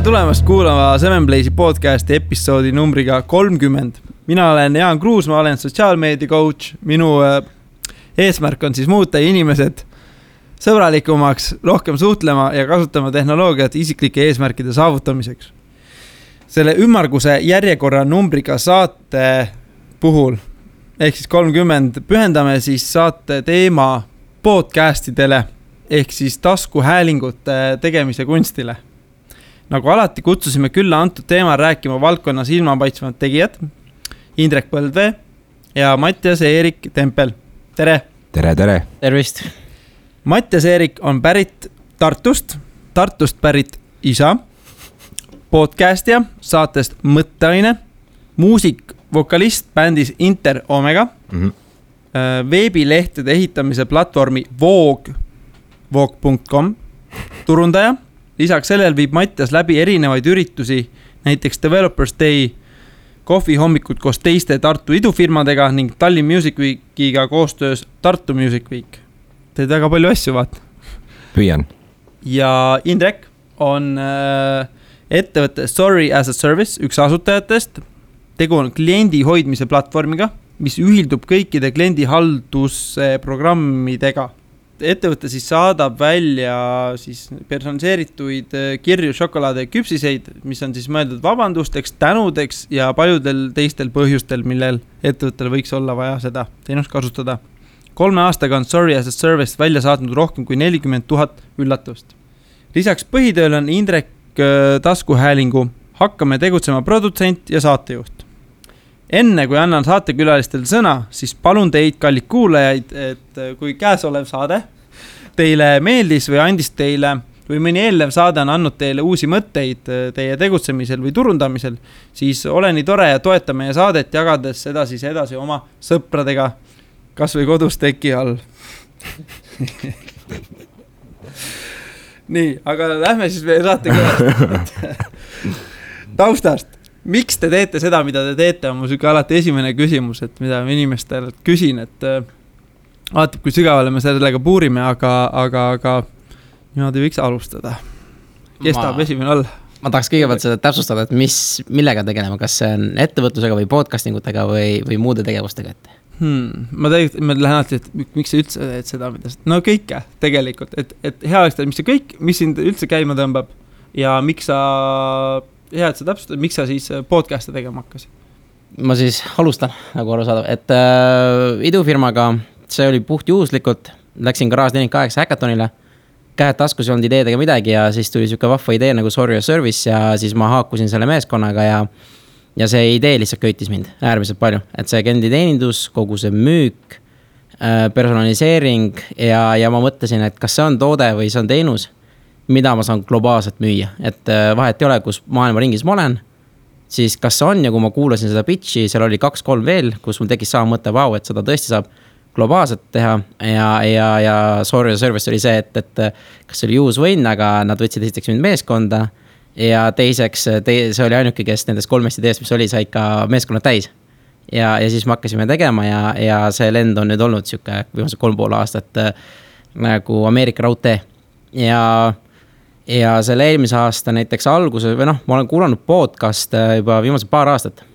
tulemast kuulama Seven Blaze'i podcasti episoodi numbriga 30. Mina olen Jaan Kruus, ma olen sotsiaalmeedia coach. Minu eesmärk on siis muuta inimesed sõbralikumaks, rohkem suhtlema ja kasutama tehnoloogiat isiklike eesmärkide saavutamiseks. Selle ümmarguse järjekorra numbriga saate puhul, ehk siis 30, pühendame siis saate teema podcastidele, ehk siis taskuhäälingute tegemise kunstile. Nagu alati kutsusime külla antud teema rääkima valdkonnas ilmapaitsvad tegijad, Indrek Põldvee ja Mattias-Eerik Tempel. Tere! Tere, tere! Tervist! Mattias-Eerik on pärit Tartust pärit isa, podcastija, saatest Mõtteaine, muusik, vokalist bändis Inter Omega, veebilehtede ehitamise platvormi Voog.com, turundaja. Lisaks sellel viib Mattias läbi erinevaid üritusi, näiteks Developers Day, kohvi hommikud koos teiste Tartu idufirmadega ning Tallinn Music Weekiga koostöös Tartu Music Week. Teed väga palju asju, vaat. Püüan. Ja Indrek on ettevõtte Sorry as a Service, üks asutajatest. Tegu on kliendi hoidmise platvormiga, mis ühildub kõikide kliendi haldusprogrammidega. Ettevõte siis saadab välja siis personaliseerituid kirju, šokolaade ja küpsiseid, mis on siis mõeldud vabandusteks, tänudeks ja paljudel teistel põhjustel, millel ettevõttel võiks olla vaja seda teenust kasutada. 3 aastaga on Sorry as a Service välja saatnud rohkem kui 40 000 üllatust. Lisaks põhitööl on Indrek taskuhäälingu Hakkame tegutsema produtsent ja saatejuht. Enne kui annan saatekülalistel sõna, siis palun teid, kallid kuulajaid, et kui käesolev saade teile meeldis või andis teile või mõni eelnev saade on andnud teile uusi mõtteid teie tegutsemisel või turundamisel, siis ole nii tore ja toeta meie saadet jagades edasi oma sõpradega, kas või kodus teki all. Nii, aga lähme siis meie saatekülalistel taustast. Miks te teete seda, mida te teete, on mu süge alati esimene küsimus, et mida ma inimestelt küsin, et vaatab, kui sügavale me sellega puurime, aga niimoodi võiks alustada. Kes tahab esimene olla? Ma tahaks kõigepealt seda täpsustada, et millega tegelema, kas see on ettevõtlusega või podcastingutega või muude tegevustega ette? Ma lähen alati, et miks sa üldse teed seda, mida no kõike tegelikult, et hea oleks teha, mis see kõik, mis sind üldse käima tõmbab ja miks sa hea, et sa täpsustad, miks sa siis podcast'e tegema hakkas? Ma siis alustan, nagu aru saada, et idufirmaga see oli puht juhuslikult, läksin Garage 48 hackathonile, käed taskus ei olnud ideedega midagi ja siis tuli siuke vahva idee nagu Sorry as a Service ja siis ma haakusin selle meeskonnaga ja see idee lihtsalt köitis mind äärmiselt palju, et see klienditeenindus, kogu see müük, personaliseering ja ma mõtlesin, et kas see on toode või see on teenus, mida ma saan globaalselt müüa, et vahet ei ole, kus maailma ringis ma olen, siis kas see on ja kui ma kuulasin seda pitchi, seal oli 2-3 veel, kus mul tekkis sama mõte, et seda tõesti saab globaalselt teha ja Sorry as a Service oli see, et kas see oli use win, aga nad võtsid esiteks mind meeskonda ja teiseks see oli ainuke, kes nendest 3 ideest, mis oli, sai ka meeskonna täis ja siis me hakkasime tegema ja see lend on nüüd olnud siuke viimase 3,5 aastat nagu Ameerika raudtee ja selle eelmise aasta näiteks alguses või ma olen kuulanud podcast juba viimase paar aastat.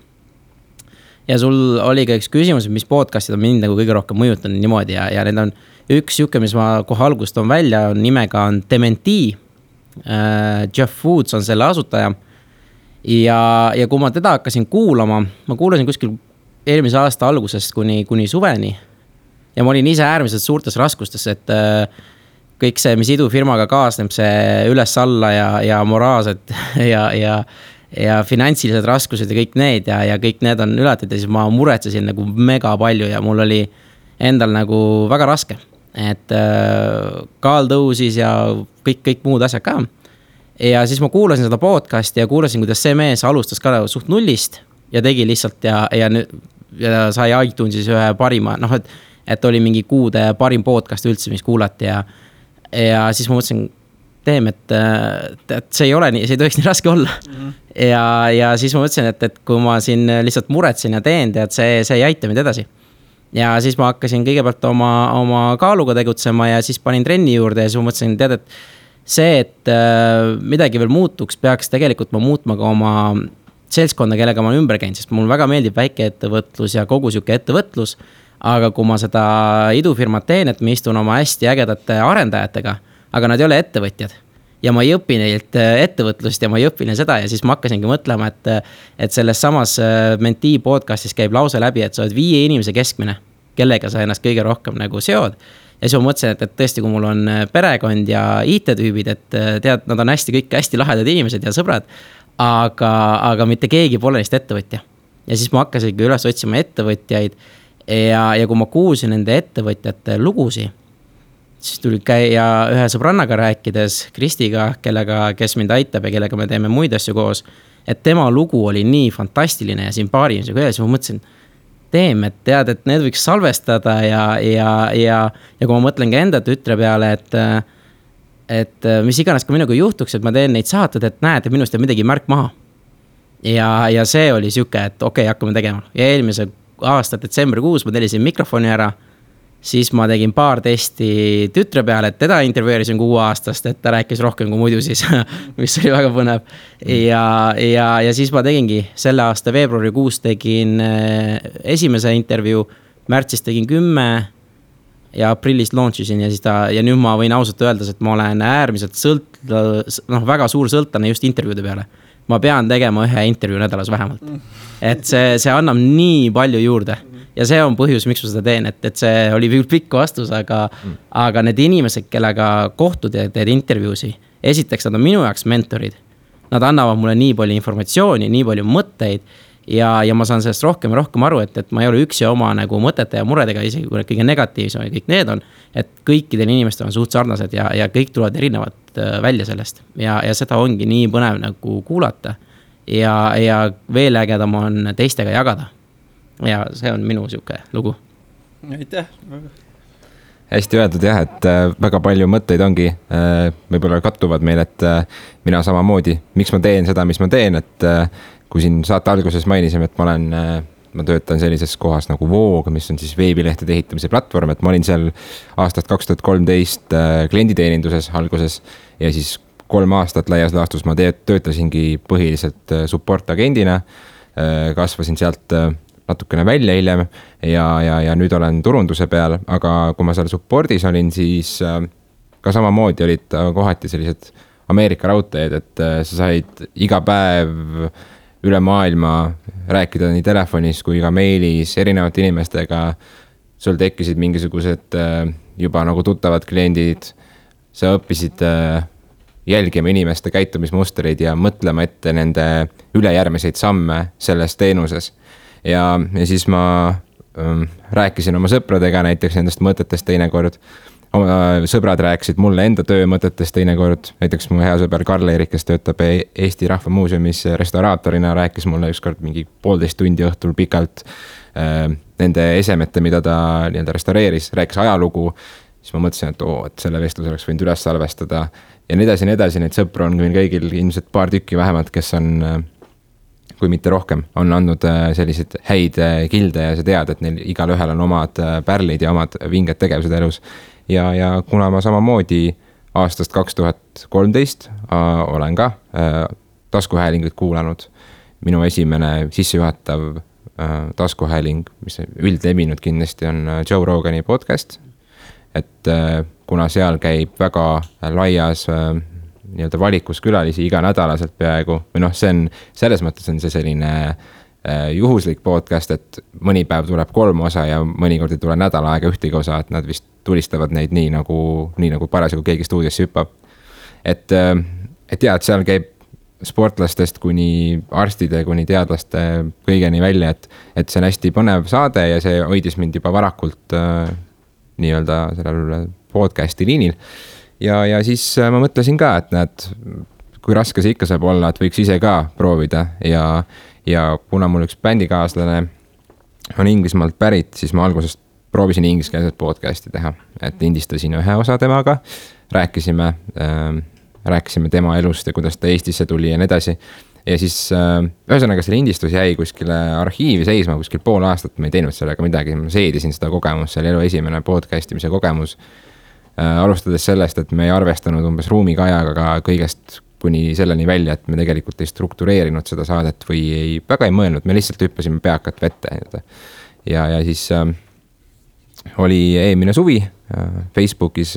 Ja sul oli ka üks küsimus, mis podcastid on mind nagu kõige rohkem mõjutanud niimoodi ja need on üks juke, mis ma kohe algust on välja, nimega on Dementi. Jeff Woods on selle asutaja ja kui ma teda hakkasin kuulama, ma kuulasin kuskil eelmise aasta algusest kuni suveni ja ma olin ise äärmiselt suurtes raskustes, et kõik see, mis idufirmaga kaasneb, see üles-alla ja moraalsed ja finantsilised raskused ja kõik need ja kõik need on ületatud ja siis ma muretsesin nagu mega palju ja mul oli endal nagu väga raske, et kaal tõusis ja kõik muud asjad ka. Ja siis ma kuulasin seda podcasti ja kuulasin, kuidas see mees alustas ka suht nullist ja tegi lihtsalt ja sai iTunesis ühe parima, et oli mingi kuude parim podcast üldse, mis kuulati ja siis ma mõtlesin, et see ei ole nii, see ei tohiks nii raske olla. Ja siis ma mõtlesin, et kui ma siin lihtsalt muretsin ja teen, et see ei aita mind edasi. Ja siis ma hakkasin kõigepealt oma kaaluga tegutsema ja siis panin trenni juurde ja siis ma mõtlesin, et see, et midagi veel muutuks, peaks tegelikult ma muutma ka oma seltskonda, kellega ma olen ümber käinud, sest mulle väga meeldib väikeettevõtlus ja kogu sihuke ettevõtlus. Aga kui ma seda idufirmat teen, et ma istun oma hästi ägedate arendajatega, aga nad ei ole ettevõtjad. Ja ma ei õpi neilt ettevõtlust ja ma ei õpi neil seda ja siis ma hakkasingi mõtlema, et selles samas Mentee podcastis käib lause läbi, et sa oled 5 inimese keskmine, kellega sa ennast kõige rohkem nagu seod. Ja siis ma mõtlesin, et tõesti, kui mul on perekond ja IT-tüübid, et tead, nad on kõik hästi lahedad inimesed ja sõbrad, aga mitte keegi pole neist ettevõtja. Ja siis ma hakkasingi üles otsima ettevõtjaid ja kui ma kuulsin nende ettevõtjate lugusi, siis tuli käia ühe sõbrannaga rääkides, Kristiga, kes mind aitab ja kellega me teeme muid asju koos, et tema lugu oli nii fantastiline ja siin paari inimesega üles, ma mõtlesin, et tead, et need võiks salvestada ja kui ma mõtlen ka enda tütre peale, et mis iganes ka minuga juhtuks, et ma teen neid saated, et näed, et minust jääb midagi märk maha. Ja see oli siuke, et okei, hakkame tegema. Ja eelmise aasta detsembrikuus ma tellisin mikrofoni ära, siis ma tegin paar testi tütre peale, et teda intervjueerisin 6 aastast, et ta rääkis rohkem kui muidu siis, mis oli väga põnev. Ja siis ma tegingi selle aasta veebruarikuus tegin esimese intervjuu, märtsis tegin 10 ja aprillis launchisin ja nüüd ma võin ausalt öelda, et ma olen äärmiselt väga suur sõltlane just intervjuude peale. Ma pean tegema 1 intervjuu nädalas vähemalt. Et see annab nii palju juurde. Ja see on põhjus, miks ma seda teen, et see oli pikk vastus, aga need inimesed, kellega kohtud ja teed intervjuusi, esiteks nad on minu jaoks mentorid. Nad annavad mulle nii palju informatsiooni, nii palju mõtteid ja ma saan sellest rohkem aru, et ma ei ole üksi oma nagu mõtete ja muredega, isegi kui kõige negatiivsem ja kõik need on, et kõikidel inimestel on suht sarnased ja kõik tulevad erinevad välja sellest ja seda ongi nii põnev nagu kuulata ja veel ägedam on teistega jagada. Ja see on minu siuke lugu. Aitäh. Hästi öeldud jah, et väga palju mõtteid ongi, võib-olla kattuvad meil, et mina samamoodi, miks ma teen seda, mis ma teen, et kui siin saate alguses mainisime, et ma töötan sellises kohas nagu Voog, mis on siis veebilehtede ehitamise platvorm, et ma olin seal aastast 2013 klienditeeninduses alguses ja siis 3 aastat laias laastus ma töötasingi põhiliselt support agendina, kasvasin sealt natukene välja hiljem ja nüüd olen turunduse peal, aga kui ma seal supportis olin, siis ka samamoodi olid kohati sellised Ameerika raudteed, et sa said iga päev üle maailma rääkida nii telefonis kui ka meilis erinevate inimestega. Sul tekkisid mingisugused juba nagu tuttavad kliendid, sa õppisid jälgima inimeste käitumismustreid ja mõtlema ette nende ülejärgmiseid samme selles teenuses. Ja siis ma rääkisin oma sõpradega näiteks nendest mõtetest teinekord. Sõbrad rääkisid mulle enda töömõtetest teinekord. Näiteks mu hea sõber Karl-Erik, kes töötab Eesti Rahva Muuseumis restauraatorina, rääkis mulle ükskord mingi 1,5 tundi õhtul pikalt nende esemete, mida ta restaureeris, rääkis ajalugu. Siis ma mõtlesin, et selle vestluse oleks võinud üles salvestada ja nii edasi. Neid sõpru on kõigil ilmselt paar tükki vähemalt, kes on kui mitte rohkem, on andnud sellised häid kilde ja sa tead, et neil igal ühel on omad pärlid ja omad vinged tegevused elus. Ja kuna ma samamoodi aastast 2013 olen ka taskuhäälinguid kuulanud, minu esimene sissejuhatav taskuhääling, mis üldlevinud kindlasti on Joe Rogani podcast, et kuna seal käib väga laias valikus külalisi iga nädalaselt peaaegu, või see on, selles mõttes on see selline juhuslik podcast, et mõni päev tuleb 3 osa ja mõnikord ei tule nädal aega ühtegi osa, et nad vist tulistavad neid nii nagu parasjagu keegi stuudiosse hüppab. Et jah, et seal käib sportlastest kuni arstide, kuni teadlaste kõigeni välja, et see on hästi põnev saade ja see hoidis mind juba varakult nii-öelda sellel podcasti liinil. Ja siis ma mõtlesin ka, et näed, kui raske see ikka saab olla, et võiks ise ka proovida ja kuna mul üks bändikaaslane on Inglismaalt pärit, siis ma algusest proovisin ingliskeelset podcasti teha, et lindistasin 1 osa temaga, rääkisime tema elust ja kuidas ta Eestisse tuli ja nii edasi. Ja siis ühesõnaga see lindistus jäi kuskile arhiivi seisma, kuskil 0,5 aastat, ma ei teinud sellega midagi, ma seedisin seda kogemust, see oli elu esimene podcastimise kogemus. alustades sellest, et me ei arvestanud umbes ruumikajaga kõigest kuni selleni välja, et me tegelikult ei struktureerinud seda saadet või väga ei mõelnud, me lihtsalt hüppasime peakat vette. Ja siis oli eelmine suvi Facebookis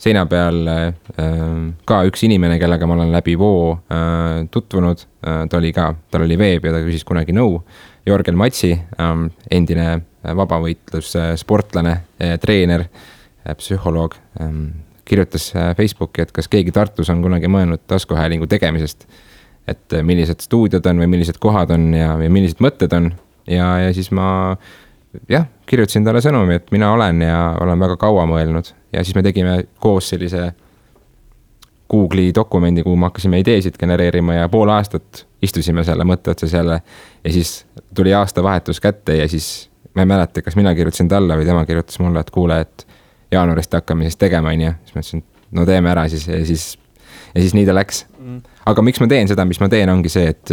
seina peal ka üks inimene, kellega ma olen läbi Voo tutvunud, tal oli veeb ja ta küsis kunagi nõu. Jorgel Matsi, endine vabavõitlus sportlane, treener, psühholoog, kirjutas Facebooki, et kas keegi Tartus on kunagi mõelnud taskuhäälingu tegemisest, et millised stuudiod on või millised kohad on ja millised mõtted on. Ja siis ma kirjutasin talle sõnumi, et mina olen ja olen väga kaua mõelnud. Ja siis me tegime koos sellise Google'i dokumendi, kuhu me hakkasime ideesid genereerima ja pool aastat istusime selle mõtte otsas jälle. Ja siis tuli aastavahetus kätte ja siis ma ei mäleta, kas mina kirjutasin talle või tema kirjutas mulle, et kuule, et jaanuarist hakkame siis tegema, on ja siis ma ütlesin, no teeme ära siis ja siis nii ta läks. Aga miks ma teen seda, mis ma teen, ongi see, et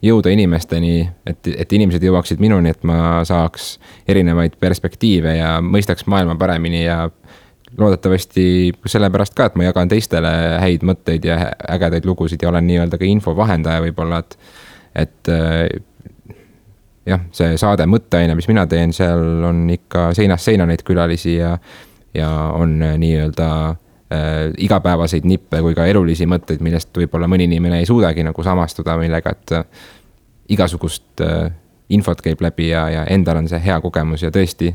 jõuda inimesteni, et inimesed jõuaksid minuni, et ma saaks erinevaid perspektiive ja mõistaks maailma paremini ja loodetavasti sellepärast ka, et ma jagan teistele häid mõtteid ja ägedaid lugusid ja olen nii-öelda ka infovahendaja võib-olla, et jah, see saade mõtteaine, mis mina teen, seal on ikka seinast seina neid külalisi ja on nii-öelda igapäevaseid nippe kui ka elulisi mõtteid, millest võib-olla mõni inimene ei suudagi nagu samastuda, millega, et igasugust infot käib läbi ja endal on see hea kogemus ja tõesti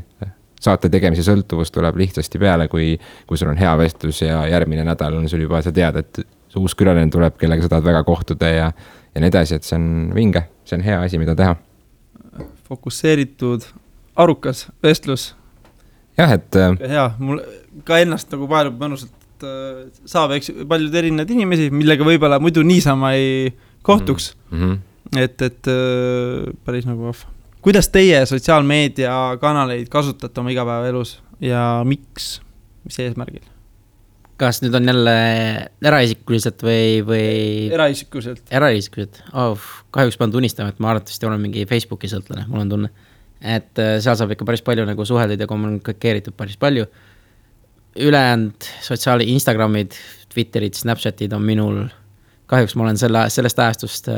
saate tegemise sõltuvus tuleb lihtsasti peale, kui sul on hea vestlus ja järgmine nädal on sul juba, sa tead, et uus külaline tuleb, kellega sa tahad väga kohtuda ja nii edasi, et see on vinge, see on hea asi, mida teha. Fokusseeritud, arukas vestlus. Jah, et hea, mul ka ennast nagu paelub mõnusalt saab paljud erinevad inimesi, millega võib-olla muidu niisama ei kohtuks. Et päris nagu vahva. Kuidas teie sotsiaalmeedia kanaleid kasutate oma igapäevaelus ja miks, mis eesmärgil? Kas nüüd on jälle eraisikuliselt või? Eraisikuliselt. Kahjuks pean tunnistama, et ma arvatavasti olen mingi Facebooki sõltlane, mul on tunne. Et seal saab ikka päris palju nagu suheldud ja kommunikeeritud päris palju. Ülejäänud Instagramid, Twitterid, Snapchatid on minul. Kahjuks ma olen sellest ajastust,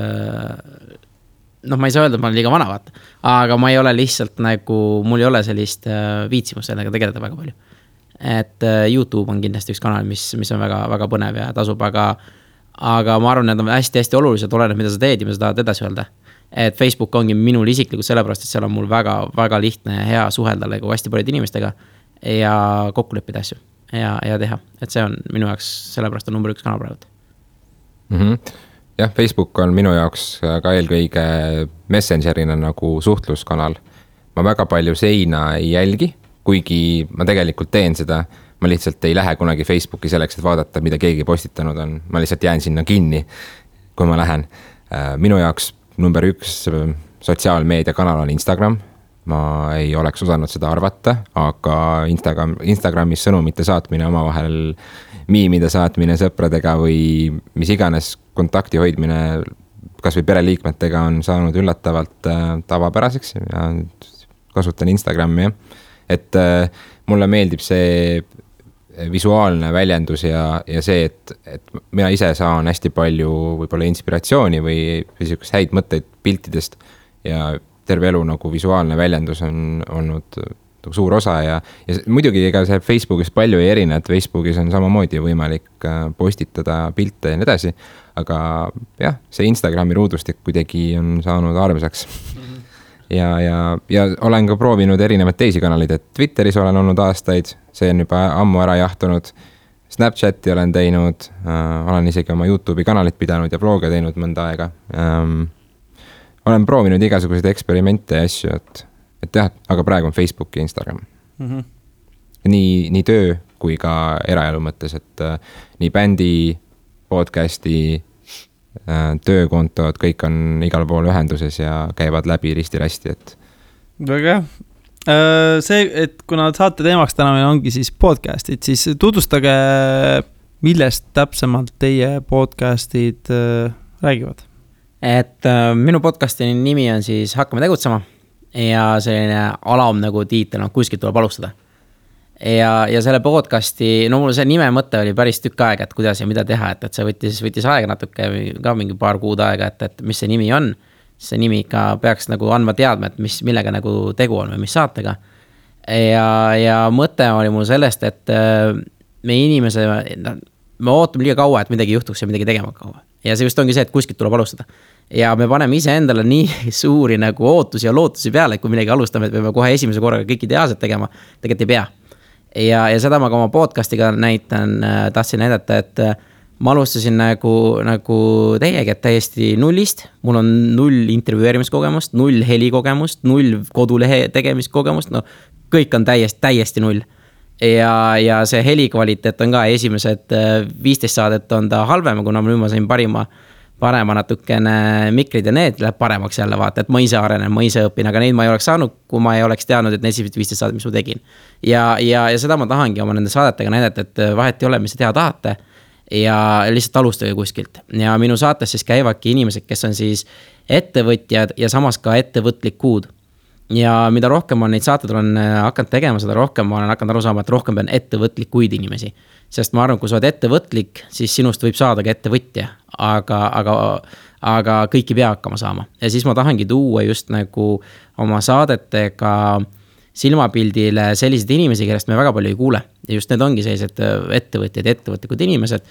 ma ei saa öelda, et ma olen liiga vana vaata, aga ma ei ole lihtsalt nagu, mul ei ole sellist viitsimust sellega tegeleda väga palju. Et YouTube on kindlasti üks kanal, mis on väga, väga põnev ja tasub, aga ma arvan, et on hästi-hästi olulised, oleneb, mida sa teed ja mida sa tahad edasi öelda. Et Facebook ongi minul isiklikult sellepärast, et seal on mul väga, väga lihtne ja hea suhelda nagu hästi palju inimestega ja kokku leppida asju ja teha. Et see on minu jaoks, sellepärast on number 1 kanal praegu. Jah, Facebook on minu jaoks ka eelkõige messengerina nagu suhtluskanal. Ma väga palju seina ei jälgi, kuigi ma tegelikult teen seda. Ma lihtsalt ei lähe kunagi Facebooki selleks, et vaadata, mida keegi postitanud on. Ma lihtsalt jään sinna kinni, kui ma lähen. Minu jaoks number 1 sotsiaalmeedia kanal on Instagram. Ma ei oleks osanud seda arvata, aga Instagramis sõnumite saatmine omavahel, miimide saatmine sõpradega või mis iganes kontakti hoidmine kas või pereliikmetega on saanud üllatavalt tavapäraseks ja kasutan Instagrami. Et mulle meeldib see visuaalne väljendus ja see, et mina ise saan hästi palju võib-olla inspiratsiooni või häid mõtteid piltidest ja terve elu nagu visuaalne väljendus on olnud suur osa ja muidugi ega see Facebookis palju ei erine, et Facebookis on samamoodi võimalik postitada pilte ja nii edasi, aga jah, see Instagrami ruudustik kuidagi on saanud armsaks. Ja olen ka proovinud erinevaid teisi kanaleid, et Twitteris olen olnud aastaid, see on juba ammu ära jahtunud, Snapchati olen teinud, olen isegi oma YouTube'i kanalit pidanud ja vloge teinud mõnda aega. Olen proovinud igasuguseid eksperimente ja asju, et jah, aga praegu on Facebook ja Instagram. Nii töö kui ka eraelu mõttes, et nii bändi, podcasti, töökontod, kõik on igal pool ühenduses ja käivad läbi risti-rästi, et. Väga hea. See, et kuna saate teemaks täna meil ongi siis podcastid, siis tutvustage, millest täpsemalt teie podcastid räägivad. Et minu podcasti nimi on siis Hakkame tegutsema ja selline alam nagu tiitel, kuskilt tuleb alustada. ja selle podcasti, no mul see nime mõte oli päris tükk aega, et kuidas ja mida teha, et see võttis aega natuke, ka mingi paar kuud aega, et mis see nimi on. See nimi ikka peaks nagu andma teadma, et millega nagu tegu on või mis saatega. Ja mõte oli mul sellest, et me inimese, me ootame liiga kaua, et midagi juhtuks ja midagi tegema kaua. Ja see just ongi see, et kuskilt tuleb alustada. Ja me paneme ise endale nii suuri nagu ootusi ja lootusi peale, et kui midagi alustame, et me peame kohe esimese korraga kõik ideaalselt tegema, tegelikult ei pea. Ja seda ma ka oma podcastiga tahtsin näidata, et ma alustasin nagu teiegi, et täiesti nullist. Mul on 0 intervjueerimiskogemust, 0 helikogemust, 0 kodulehe tegemiskogemust, no kõik on täiesti 0. Ja see helikvaliteet on ka esimesed 15 saadet on ta halvem, kuna ma sain parema natukene mikrid ja need läheb paremaks jälle vaata, et ma ise arenen, ma ise õpin, aga neid ma ei oleks saanud, kui ma ei oleks teadnud, et need 15 saadet, mis ma tegin. Ja seda ma tahangi oma nende saadetega näidata, et vahet ei ole, mis te teha tahate ja lihtsalt alustage kuskilt. Ja minu saates siis käivadki inimesed, kes on siis ettevõtjad ja samas ka ettevõtlikud. Ja mida rohkem ma neid saated olen hakanud tegema, seda rohkem ma olen hakanud aru saama, et rohkem pean ettevõtlikuid inimesi. Sest ma arvan, kui sa oled ettevõtlik, siis sinust võib saada ka ettevõtja, aga kõik ei pea hakkama saama. Ja siis ma tahangi tuua just nagu oma saadetega silmapildile sellised inimesi, kellest me väga palju ei kuule. Ja just need ongi sellised ettevõtjad, ettevõtlikud inimesed.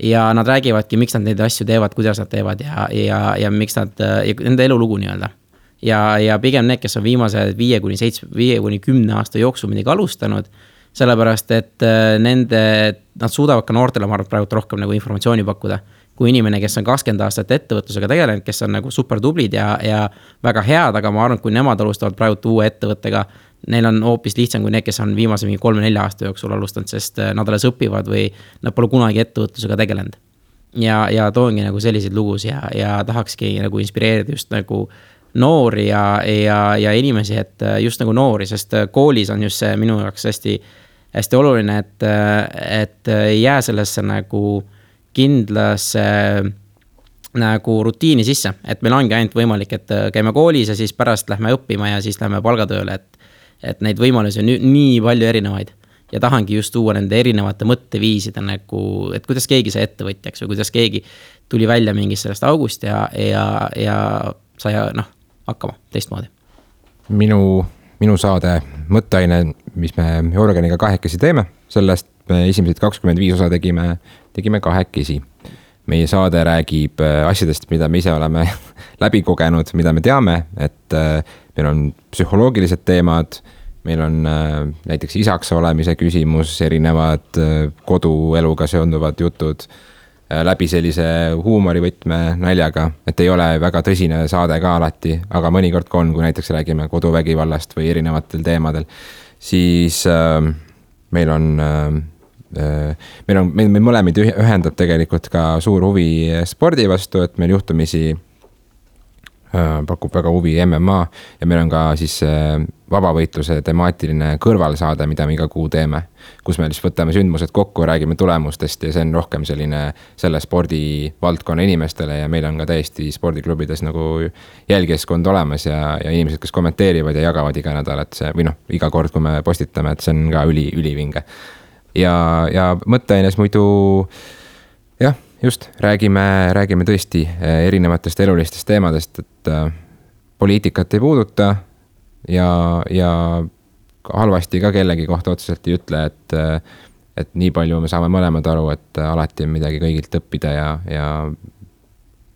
Ja nad räägivadki, miks nad neid asju teevad, kuidas nad teevad ja miks nad, nende elulugu nii-öelda. Ja pigem need, kes on viimase 5-10 aasta jooksul midagi alustanud, sellepärast, et nad suudavad ka noortele, ma arvan, praegu rohkem nagu informatsiooni pakkuda. Kui inimene, kes on 20 aastat ettevõtlusega tegelenud, kes on nagu super tublid ja väga head, aga ma arvan, kui nemad alustavad praegu uue ettevõttega, neil on hoopis lihtsam kui need, kes on viimase 3-4 aasta jooksul alustanud, sest nad alles õpivad või nad pole kunagi ettevõtlusega tegelenud. Ja toongi nagu selliseid lugus ja tahakski nagu inspireerida just nagu noori ja inimesi, et just nagu noori, sest koolis on just see minu jaoks hästi oluline, et ei jää sellesse nagu kindlasse nagu rutiini sisse, et meil ongi ainult võimalik, et käime koolis ja siis pärast lähme õppima ja siis lähme palgatööle, et neid võimalusi on nii palju erinevaid ja tahangi just tuua nende erinevate mõtteviiside nagu, et kuidas keegi sai ettevõtjaks või kuidas keegi tuli välja mingist sellest august ja sai hakkama teistmoodi. Minu saade mõtteaine, mis me Jörgeniga kahekesi teeme, sellest me esimesed 25 osa tegime kahekesi. Meie saade räägib asjadest, mida me ise oleme läbi kogenud, mida me teame, et meil on psühholoogilised teemad, meil on näiteks isaks olemise küsimus, erinevad kodueluga seonduvad jutud, läbi sellise huumorivõtme naljaga, et ei ole väga tõsine saade ka alati, aga mõnikord kui näiteks räägime koduvägivallast või erinevatel teemadel, siis meil mõlemid ühendab tegelikult ka suur huvi spordi vastu, et meil juhtumisi pakub väga huvi MMA ja meil on ka siis vabavõitluse temaatiline kõrvalsaade, mida me iga kuu teeme, kus me siis võtame sündmused kokku, räägime tulemustest ja see on rohkem selle spordivaldkonna inimestele ja meil on ka täiesti spordiklubides nagu jälgijaskond olemas ja inimesed, kes kommenteerivad ja jagavad iga nädal, et see, või iga kord, kui me postitame, et see on ka ülivinge. Ja mõtteaines muidu jah, just räägime tõesti erinevatest elulistest teemadest, et poliitikat ei puuduta ja halvasti ka kellegi kohta otseselt ei ütle, et nii palju me saame mõlemad aru, et alati on midagi kõigilt õppida ja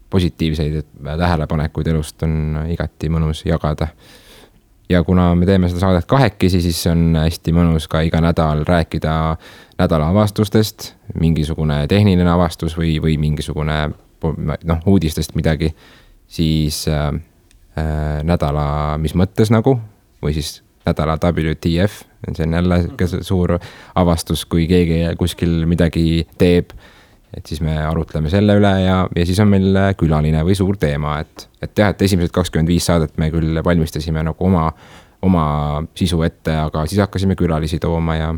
positiivseid tähelepanekuid elust on igati mõnus jagada. Ja kuna me teeme seda saadet kahekesi, siis on hästi mõnus ka iga nädal rääkida nädala avastustest, mingisugune tehniline avastus või mingisugune uudistest midagi, siis nädala mis mõttes nagu, või siis nädala WTF, see on jälle suur avastus, kui keegi kuskil midagi teeb, et siis me arutleme selle üle ja siis on meil külaline või suur teema, et esimesed 25 saadet me küll valmistasime nagu oma sisu ette, aga siis hakkasime külalisi tooma ja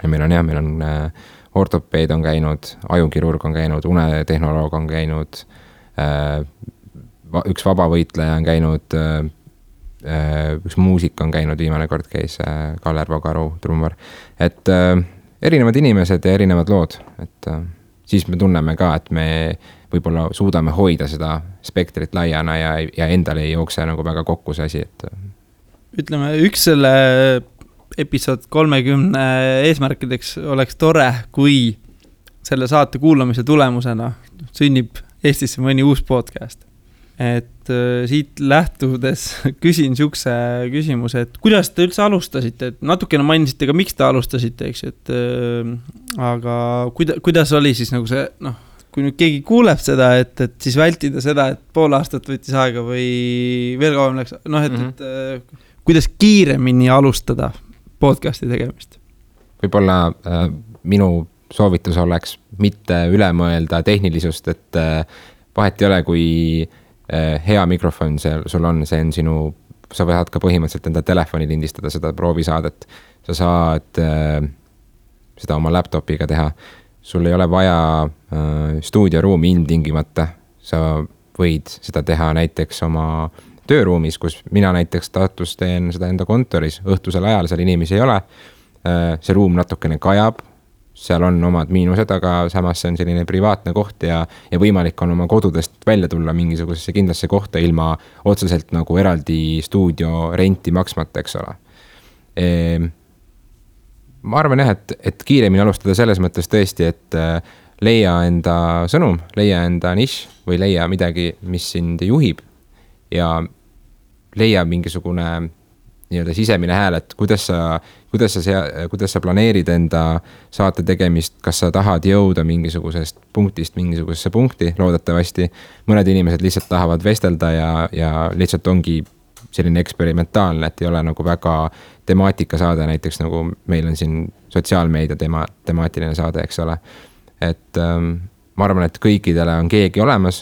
meil on ortopeed on käinud, ajukirurg on käinud, unetehnoloog on käinud, üks vabavõitleja on käinud, üks muusik on käinud, viimane kord käis Kaller Vagaru, trummar. Et erinevad inimesed ja erinevad lood, et siis me tunneme ka, et me võib-olla suudame hoida seda spektrit laiana ja endale ei jookse nagu väga kokku see asi, et ütleme, üks selle episood 30 eesmärkideks oleks tore, kui selle saate kuulamise tulemusena sünnib Eestisse mõni uus podcast. Et siit lähtudes küsin siukse küsimuse, et kuidas te üldse alustasite, et natukene mainisite ka, miks te alustasite, eks, et aga kuidas oli siis nagu see, noh, kui nüüd keegi kuuleb seda, et siis vältida seda, et pool aastat võttis aega või veel kauem läks, noh, et kuidas kiiremini alustada podcasti tegemist? Võib-olla minu soovitus oleks mitte üle mõelda tehnilisust, et vahet ei ole, kui hea mikrofon sul on, see on sinu, sa võid ka põhimõtteliselt enda telefoni lindistada seda proovisaadet. Sa saad seda oma laptopiga teha. Sul ei ole vaja stuudioruumi ilmtingimata. Sa võid seda teha näiteks oma tööruumis, kus mina näiteks Tartus teen seda enda kontoris. Õhtusel ajal seal inimesi ei ole. See ruum natukene kajab. Seal on omad miinused, aga samas see on selline privaatne koht ja võimalik on oma kodudest välja tulla mingisugusesse kindlasse kohta ilma otseselt nagu eraldi stuudio renti maksmata, eks ole. Ma arvan jah, et kiiremini alustada selles mõttes tõesti, et leia enda sõnum, leia enda nišš või leia midagi, mis sind juhib ja leia mingisugune nii-öelda sisemine hääl, et kuidas sa planeerid enda saate tegemist, kas sa tahad jõuda mingisugusest punktist mingisugusesse punkti, loodetavasti. Mõned inimesed lihtsalt tahavad vestelda ja lihtsalt ongi selline eksperimentaalne, et ei ole nagu väga temaatika saade, näiteks nagu meil on siin sotsiaalmeedia temaatiline saade, eks ole. Et ma arvan, et kõikidele on keegi olemas,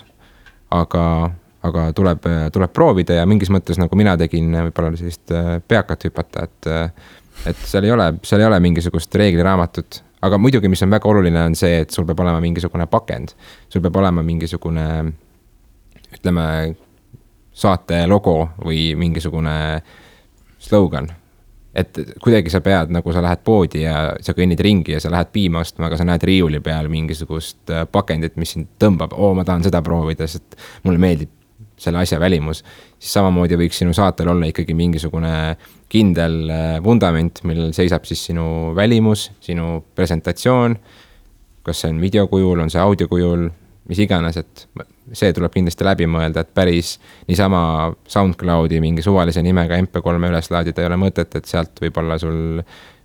aga tuleb proovida ja mingis mõttes nagu mina tegin võib-olla sellist peakat hüpata, et seal ei ole mingisugust reegliraamatut, aga muidugi, mis on väga oluline, on see, et sul peab olema mingisugune pakend, sul peab olema mingisugune, ütleme, saate logo või mingisugune slogan, et kuidagi sa pead, nagu sa lähed poodi ja sa kõnnid ringi ja sa lähed piima ostma, aga sa näed riiuli peal mingisugust pakendit, mis sind tõmbab, ma tahan seda proovida, sest mulle meeldib selle asja välimus, siis samamoodi võiks sinu saatel olla ikkagi mingisugune kindel vundament, millel seisab siis sinu välimus, sinu presentatsioon, kas see on videokujul, on see audiokujul, mis iganes, et see tuleb kindlasti läbi mõelda, et päris niisama SoundCloudi mingi suvalise nimega MP3 üles laadida ei ole mõtet, et sealt võib-olla sul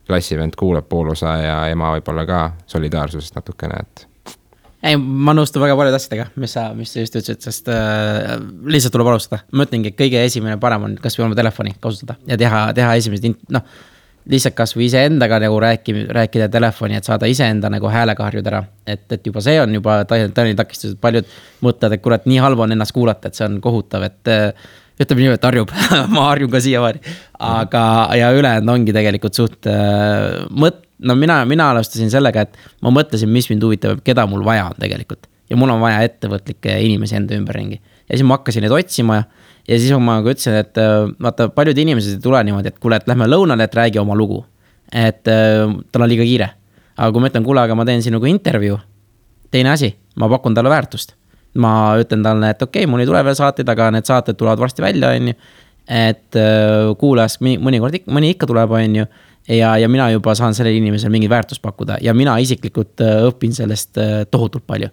klassivend kuulab poolosa ja ema võib-olla ka solidaarsusest natukene, et ei, ma nõustun väga palju asjadega, mis sa just ütlesid, sest lihtsalt tuleb alustada. Ma ütlengi, et kõige esimene parem on kas või oma telefoni kasutada ja teha esimesed, lihtsalt kas või ise endaga nagu rääkida telefoni, et saada ise enda nagu häälega harjuda ära. Et juba see on juba tõenäoliselt takistus, et paljud mõtlevad, et kurat, nii halb on ennast kuulata, et see on kohutav, et ütleme nii, et harjub, ma harjun ka siiamaani. Aga ja ülejäänud ongi tegelikult suht mina alustasin sellega, et ma mõtlesin, mis mind huvitab, keda mul vaja on tegelikult. Ja mul on vaja ettevõtlikke inimesi enda ümberringi. Ja siis ma hakkasin neid otsima ja siis ma ütlesin, et vaata, paljud inimesed ei tule niimoodi, et kuule, et lähme lõunale, et räägi oma lugu. Et tal on liiga kiire. Aga kui ma ütlen, kuule, aga ma teen sinuga intervjuu, teine asi, ma pakun talle väärtust. Ma ütlen talle, et okei, mul ei tule veel saateid, aga need saated tulevad varsti välja, on ju. Et kuulas, mõni ikka tuleb, on ju. Ja mina juba saan sellele inimesele mingi väärtus pakkuda ja mina isiklikult õpin sellest tohutult palju.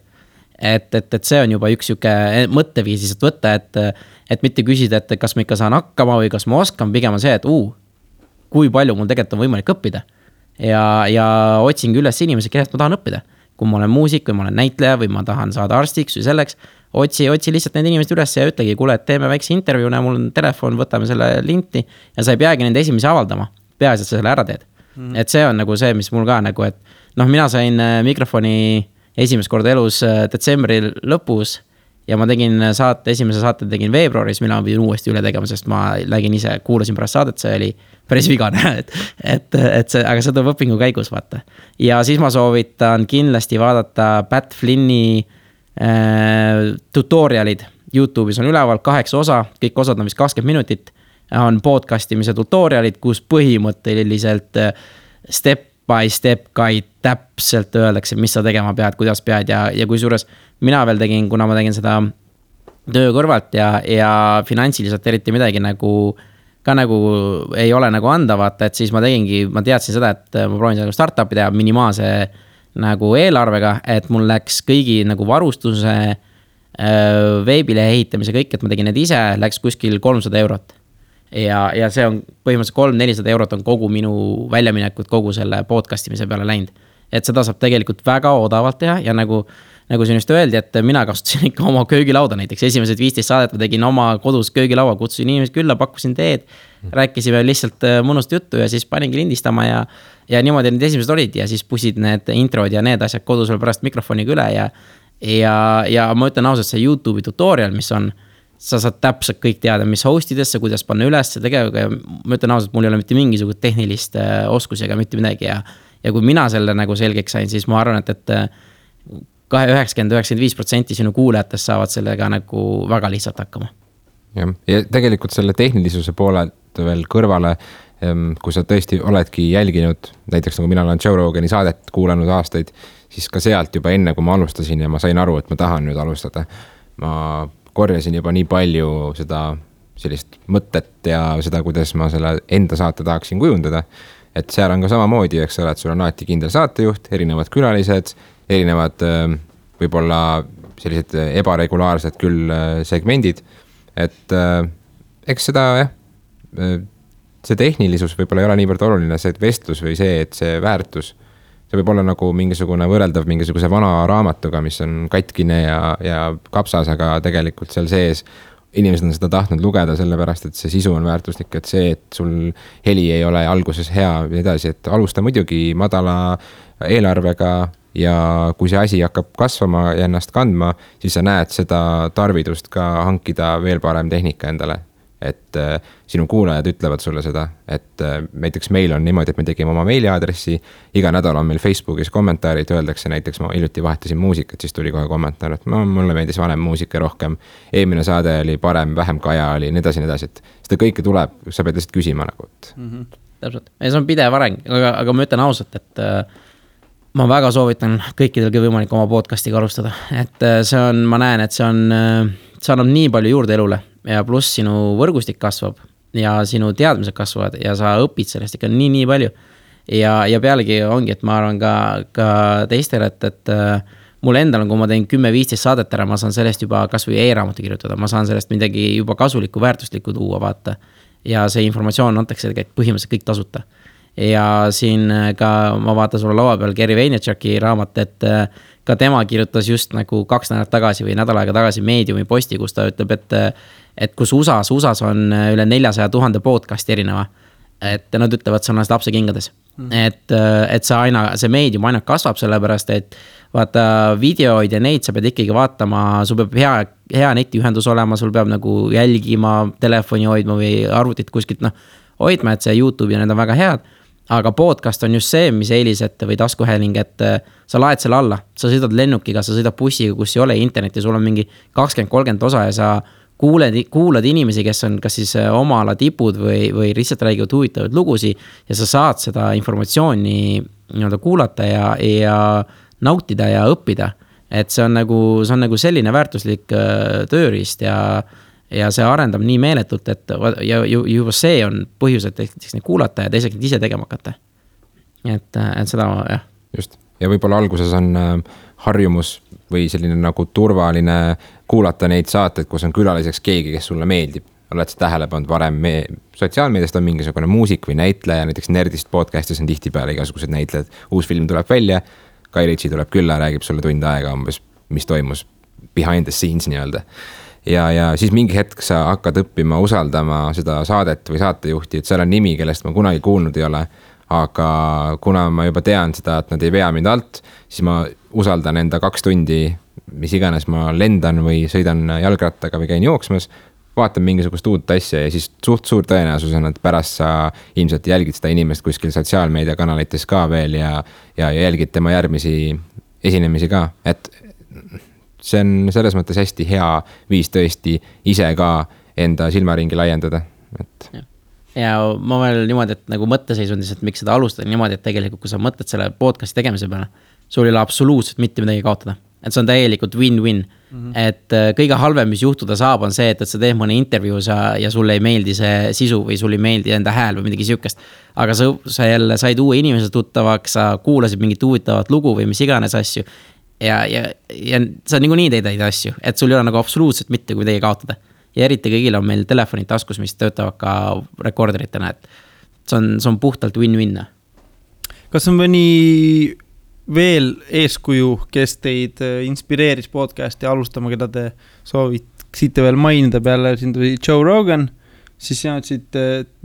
Et see on juba üks siuke mõtteviis lihtsalt võtta, et mitte küsida, et kas ma ikka saan hakkama või kas ma oskan, pigem on see, et kui palju mul tegelikult on võimalik õppida. Ja otsingi üles inimesi, kellest ma tahan õppida. Kui ma olen muusik või ma olen näitleja või ma tahan saada arstiks või selleks, otsi lihtsalt need inimesed üles ja ütlegi, kuule, et teeme väikse intervjuu, mul on telefon, võtame selle linti ja sa ei peagi nende esimesi avaldama. Peaasi, et sa selle ära teed. Et see on nagu see, mis mul ka nagu, et mina sain mikrofoni esimest korda elus detsembri lõpus ja ma tegin esimese saate tegin veebruaris, mille ma pidin uuesti üle tegema, sest ma lägin ise, kuulasin pärast saadet, see oli päris vigane, aga see tuleb õpingu käigus, vaata. Ja siis ma soovitan kindlasti vaadata Pat Flinni tutorialid YouTube'is on üleval 8 osa, kõik osad on vist 20 minutit. on podcastimise tutorialid, kus põhimõtteliselt step by step guide täpselt öeldakse, mis sa tegema pead, kuidas pead ja kui suures mina veel tegin, kuna ma tegin seda töö kõrvalt ja finantsiliselt eriti midagi nagu ei ole nagu anda, vaata, et siis ma teadsin seda, et ma proovin seda startup'i teha minimaalse nagu eelarvega, et mul läks kõigi nagu varustuse, veebilehe ehitamise kõik, et ma tegin need ise, läks kuskil 300 eurot. Ja see on põhimõtteliselt 300-400 eurot on kogu minu väljaminekud kogu selle podcastimise peale läinud. Et seda saab tegelikult väga odavalt teha ja nagu siin just öeldi, et mina kasutasin ikka oma köögilauda näiteks. Esimesed 15 saadet ma tegin oma kodus köögilaua, kutsusin inimesed külla, pakkusin teed, rääkisime lihtsalt mõnust juttu ja siis paningi lindistama ja niimoodi need esimesed olid ja siis pusid need introd ja need asjad kodus veel pärast mikrofoniga üle ja ma ütlen ausalt, see YouTube'i tutorial, mis on, sa saad täpselt kõik teada, mis hostidesse, kuidas panna üles tegevega ja ma ütlen ausalt, mul ei ole mitte mingisugust tehnilist oskusi ega mitte midagi ja kui mina selle nagu selgeks sain, siis ma arvan, et 90-95% sinu kuulajatest saavad sellega nagu väga lihtsalt hakkama. Ja tegelikult selle tehnilisuse poolelt veel kõrvale, kui sa tõesti oledki jälginud, näiteks nagu mina olen Joe Rogani saadet kuulanud aastaid, siis ka sealt juba enne, kui ma alustasin ja ma sain aru, et ma tahan nüüd alustada, ma korjasin juba nii palju seda sellist mõtet ja seda, kuidas ma selle enda saate tahaksin kujundada, et seal on ka samamoodi, eks ole, et sul on alati kindel saatejuht, erinevad külalised, erinevad võib-olla sellised ebaregulaarsed küll segmendid, et eks seda see tehnilisus võib-olla ei ole niivõrd oluline, see vestlus või see, et see väärtus, see võib olla nagu mingisugune võrreldav mingisuguse vana raamatuga, mis on katkine ja kapsas, aga tegelikult seal sees inimesed on seda tahtnud lugeda sellepärast, et see sisu on väärtuslik, et see, et sul heli ei ole alguses hea ja edasi, et alusta muidugi madala eelarvega ja kui see asi hakkab kasvama ja ennast kandma, siis sa näed seda tarvidust ka hankida veel parem tehnika endale. Et sinu kuulajad ütlevad sulle seda, et näiteks meil on niimoodi, et me tegime oma meiliaadressi, iga nädal on meil Facebookis kommentaarid, öeldakse näiteks ma hiljuti vahetasin muusikat, siis tuli kohe kommentaar, et mulle meeldis vanem muusika rohkem, eelmine saade oli parem, vähem kaja oli, nii edasi, et seda kõike tuleb, sa pead lihtsalt küsima nagu. Täpselt, ja see on pidev areng, aga ma ütlen ausalt, et ma väga soovitan kõikidel võimalik oma podcastiga alustada, et see on, ma näen, et see annab nii palju juurde elule ja pluss sinu võrgustik kasvab ja sinu teadmised kasvavad ja sa õpid sellest ikka nii palju ja pealegi ongi, et ma arvan ka teistele, et mul endal on, kui ma teen 10-15 saadet ära, ma saan sellest juba kas või e-raamatu kirjutada, ma saan sellest midagi juba kasulikku, väärtuslikku tuua, vaata ja see informatsioon antakse põhimõtteliselt kõik tasuta ja siin ka ma vaatan sulle laua peal Gary Vaynerchuki raamat, et ka tema kirjutas just nagu 2 nädalat tagasi või nädal aega tagasi Mediumi posti, kus ta ütleb, et kus USAs on üle 400,000 podcasti erineva, et nad ütlevad, see on lapse kingades. Et see Medium aina kasvab sellepärast, et vaata videoid ja neid sa pead ikkagi vaatama, sul peab hea netiühendus olema, sul peab nagu jälgima, telefoni hoidma või arvutit kuskilt hoidma, et see YouTube ja need on väga head. Aga podcast on just see, mis eelised või taskuhääling, et sa laed selle alla, sa sõidad lennukiga, sa sõidad bussiga, kus ei ole internetti, sul on mingi 20-30 osa ja sa kuulad inimesi, kes on kas siis oma ala tipud või lihtsalt räägivad huvitavaid lugusi ja sa saad seda informatsiooni kuulata ja nautida ja õppida. Et see on nagu selline väärtuslik tööriist ja see arendab nii meeletult, et ja juba see on põhjus, et neid kuulata ja teiseks ise tegema hakata. Et seda, jah. Just. Ja võib-olla alguses on harjumus või selline nagu turvaline kuulata neid saateid, kus on külaliseks keegi, kes sulle meeldib. Oled sa tähele pannud varem, sotsiaalmeediast on mingisugune muusik või näitleja, näiteks Nerdist podcastis on tihtipeale igasugused näitlejad. Uus film tuleb välja, Kai Ritsi tuleb külla, räägib sulle tund aega umbes, mis toimus behind the scenes nii-öelda. Ja siis mingi hetk sa hakkad õppima usaldama seda saadet või saatejuhti, et seal on nimi, kellest ma kunagi kuulnud ei ole, aga kuna ma juba tean seda, et nad ei vea mind alt, siis ma usaldan enda 2 tundi, mis iganes ma lendan või sõidan jalgrattaga või käin jooksmas, vaatan mingisugust uut asja ja siis suur tõenäosus on, et pärast sa ilmselt jälgid seda inimest kuskil sotsiaalmeedia kanalites ka veel ja jälgid tema järgmisi esinemisi ka, et see on selles mõttes hästi hea viis tõesti ise ka enda silmaringi laiendada. et. ja ma veel niimoodi, et nagu mõtteseisundis, et miks seda alustada niimoodi, et tegelikult kui sa mõtled selle podcasti tegemise peale, sul ei ole absoluutselt mitte midagi kaotada. Et see on täielikult win-win. Et kõige halvem, mis juhtuda saab, on see, et sa teed mõne intervjuu ja sulle ei meeldi see sisu või sulle ei meeldi enda hääl või midagi siukest. Aga sa jälle said uue inimese tuttavaks, sa kuulasid mingit huvitavat lugu või mis iganes asju. Ja sa niikuinii teed asju, et sul ei ole nagu absoluutselt mitte kui midagi kaotada. Ja eriti kõigil on meil telefonid taskus, mis töötavad ka rekorderitena, et see on puhtalt win-win. Kas on mõni veel eeskuju, kes teid inspireeris podcasti alustama, keda te sooviksite veel mainida peale, siin tuli Joe Rogan, siis sina ütlesid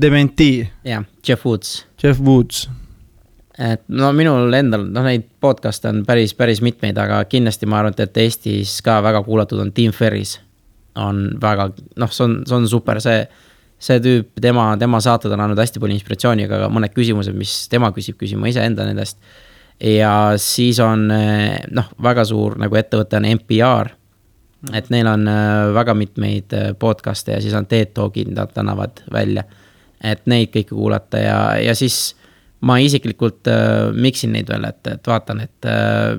Dementi. Jah, Jeff Woods. Et no minul endal, neid podcast on päris mitmeid, aga kindlasti ma arvan, et Eestis ka väga kuulatud on Tim Ferris. On väga, see on super, see tüüp, tema saated on andnud hästi palju inspiratsiooni, aga mõned küsimused, mis tema küsima ise enda nendest. Ja siis on väga suur nagu ettevõte on NPR, et neil on väga mitmeid podcaste ja siis on TED Talkid, nad annavad välja, et neid kõike kuulata ja siis ma isiklikult miksin neid veel, et vaatan, et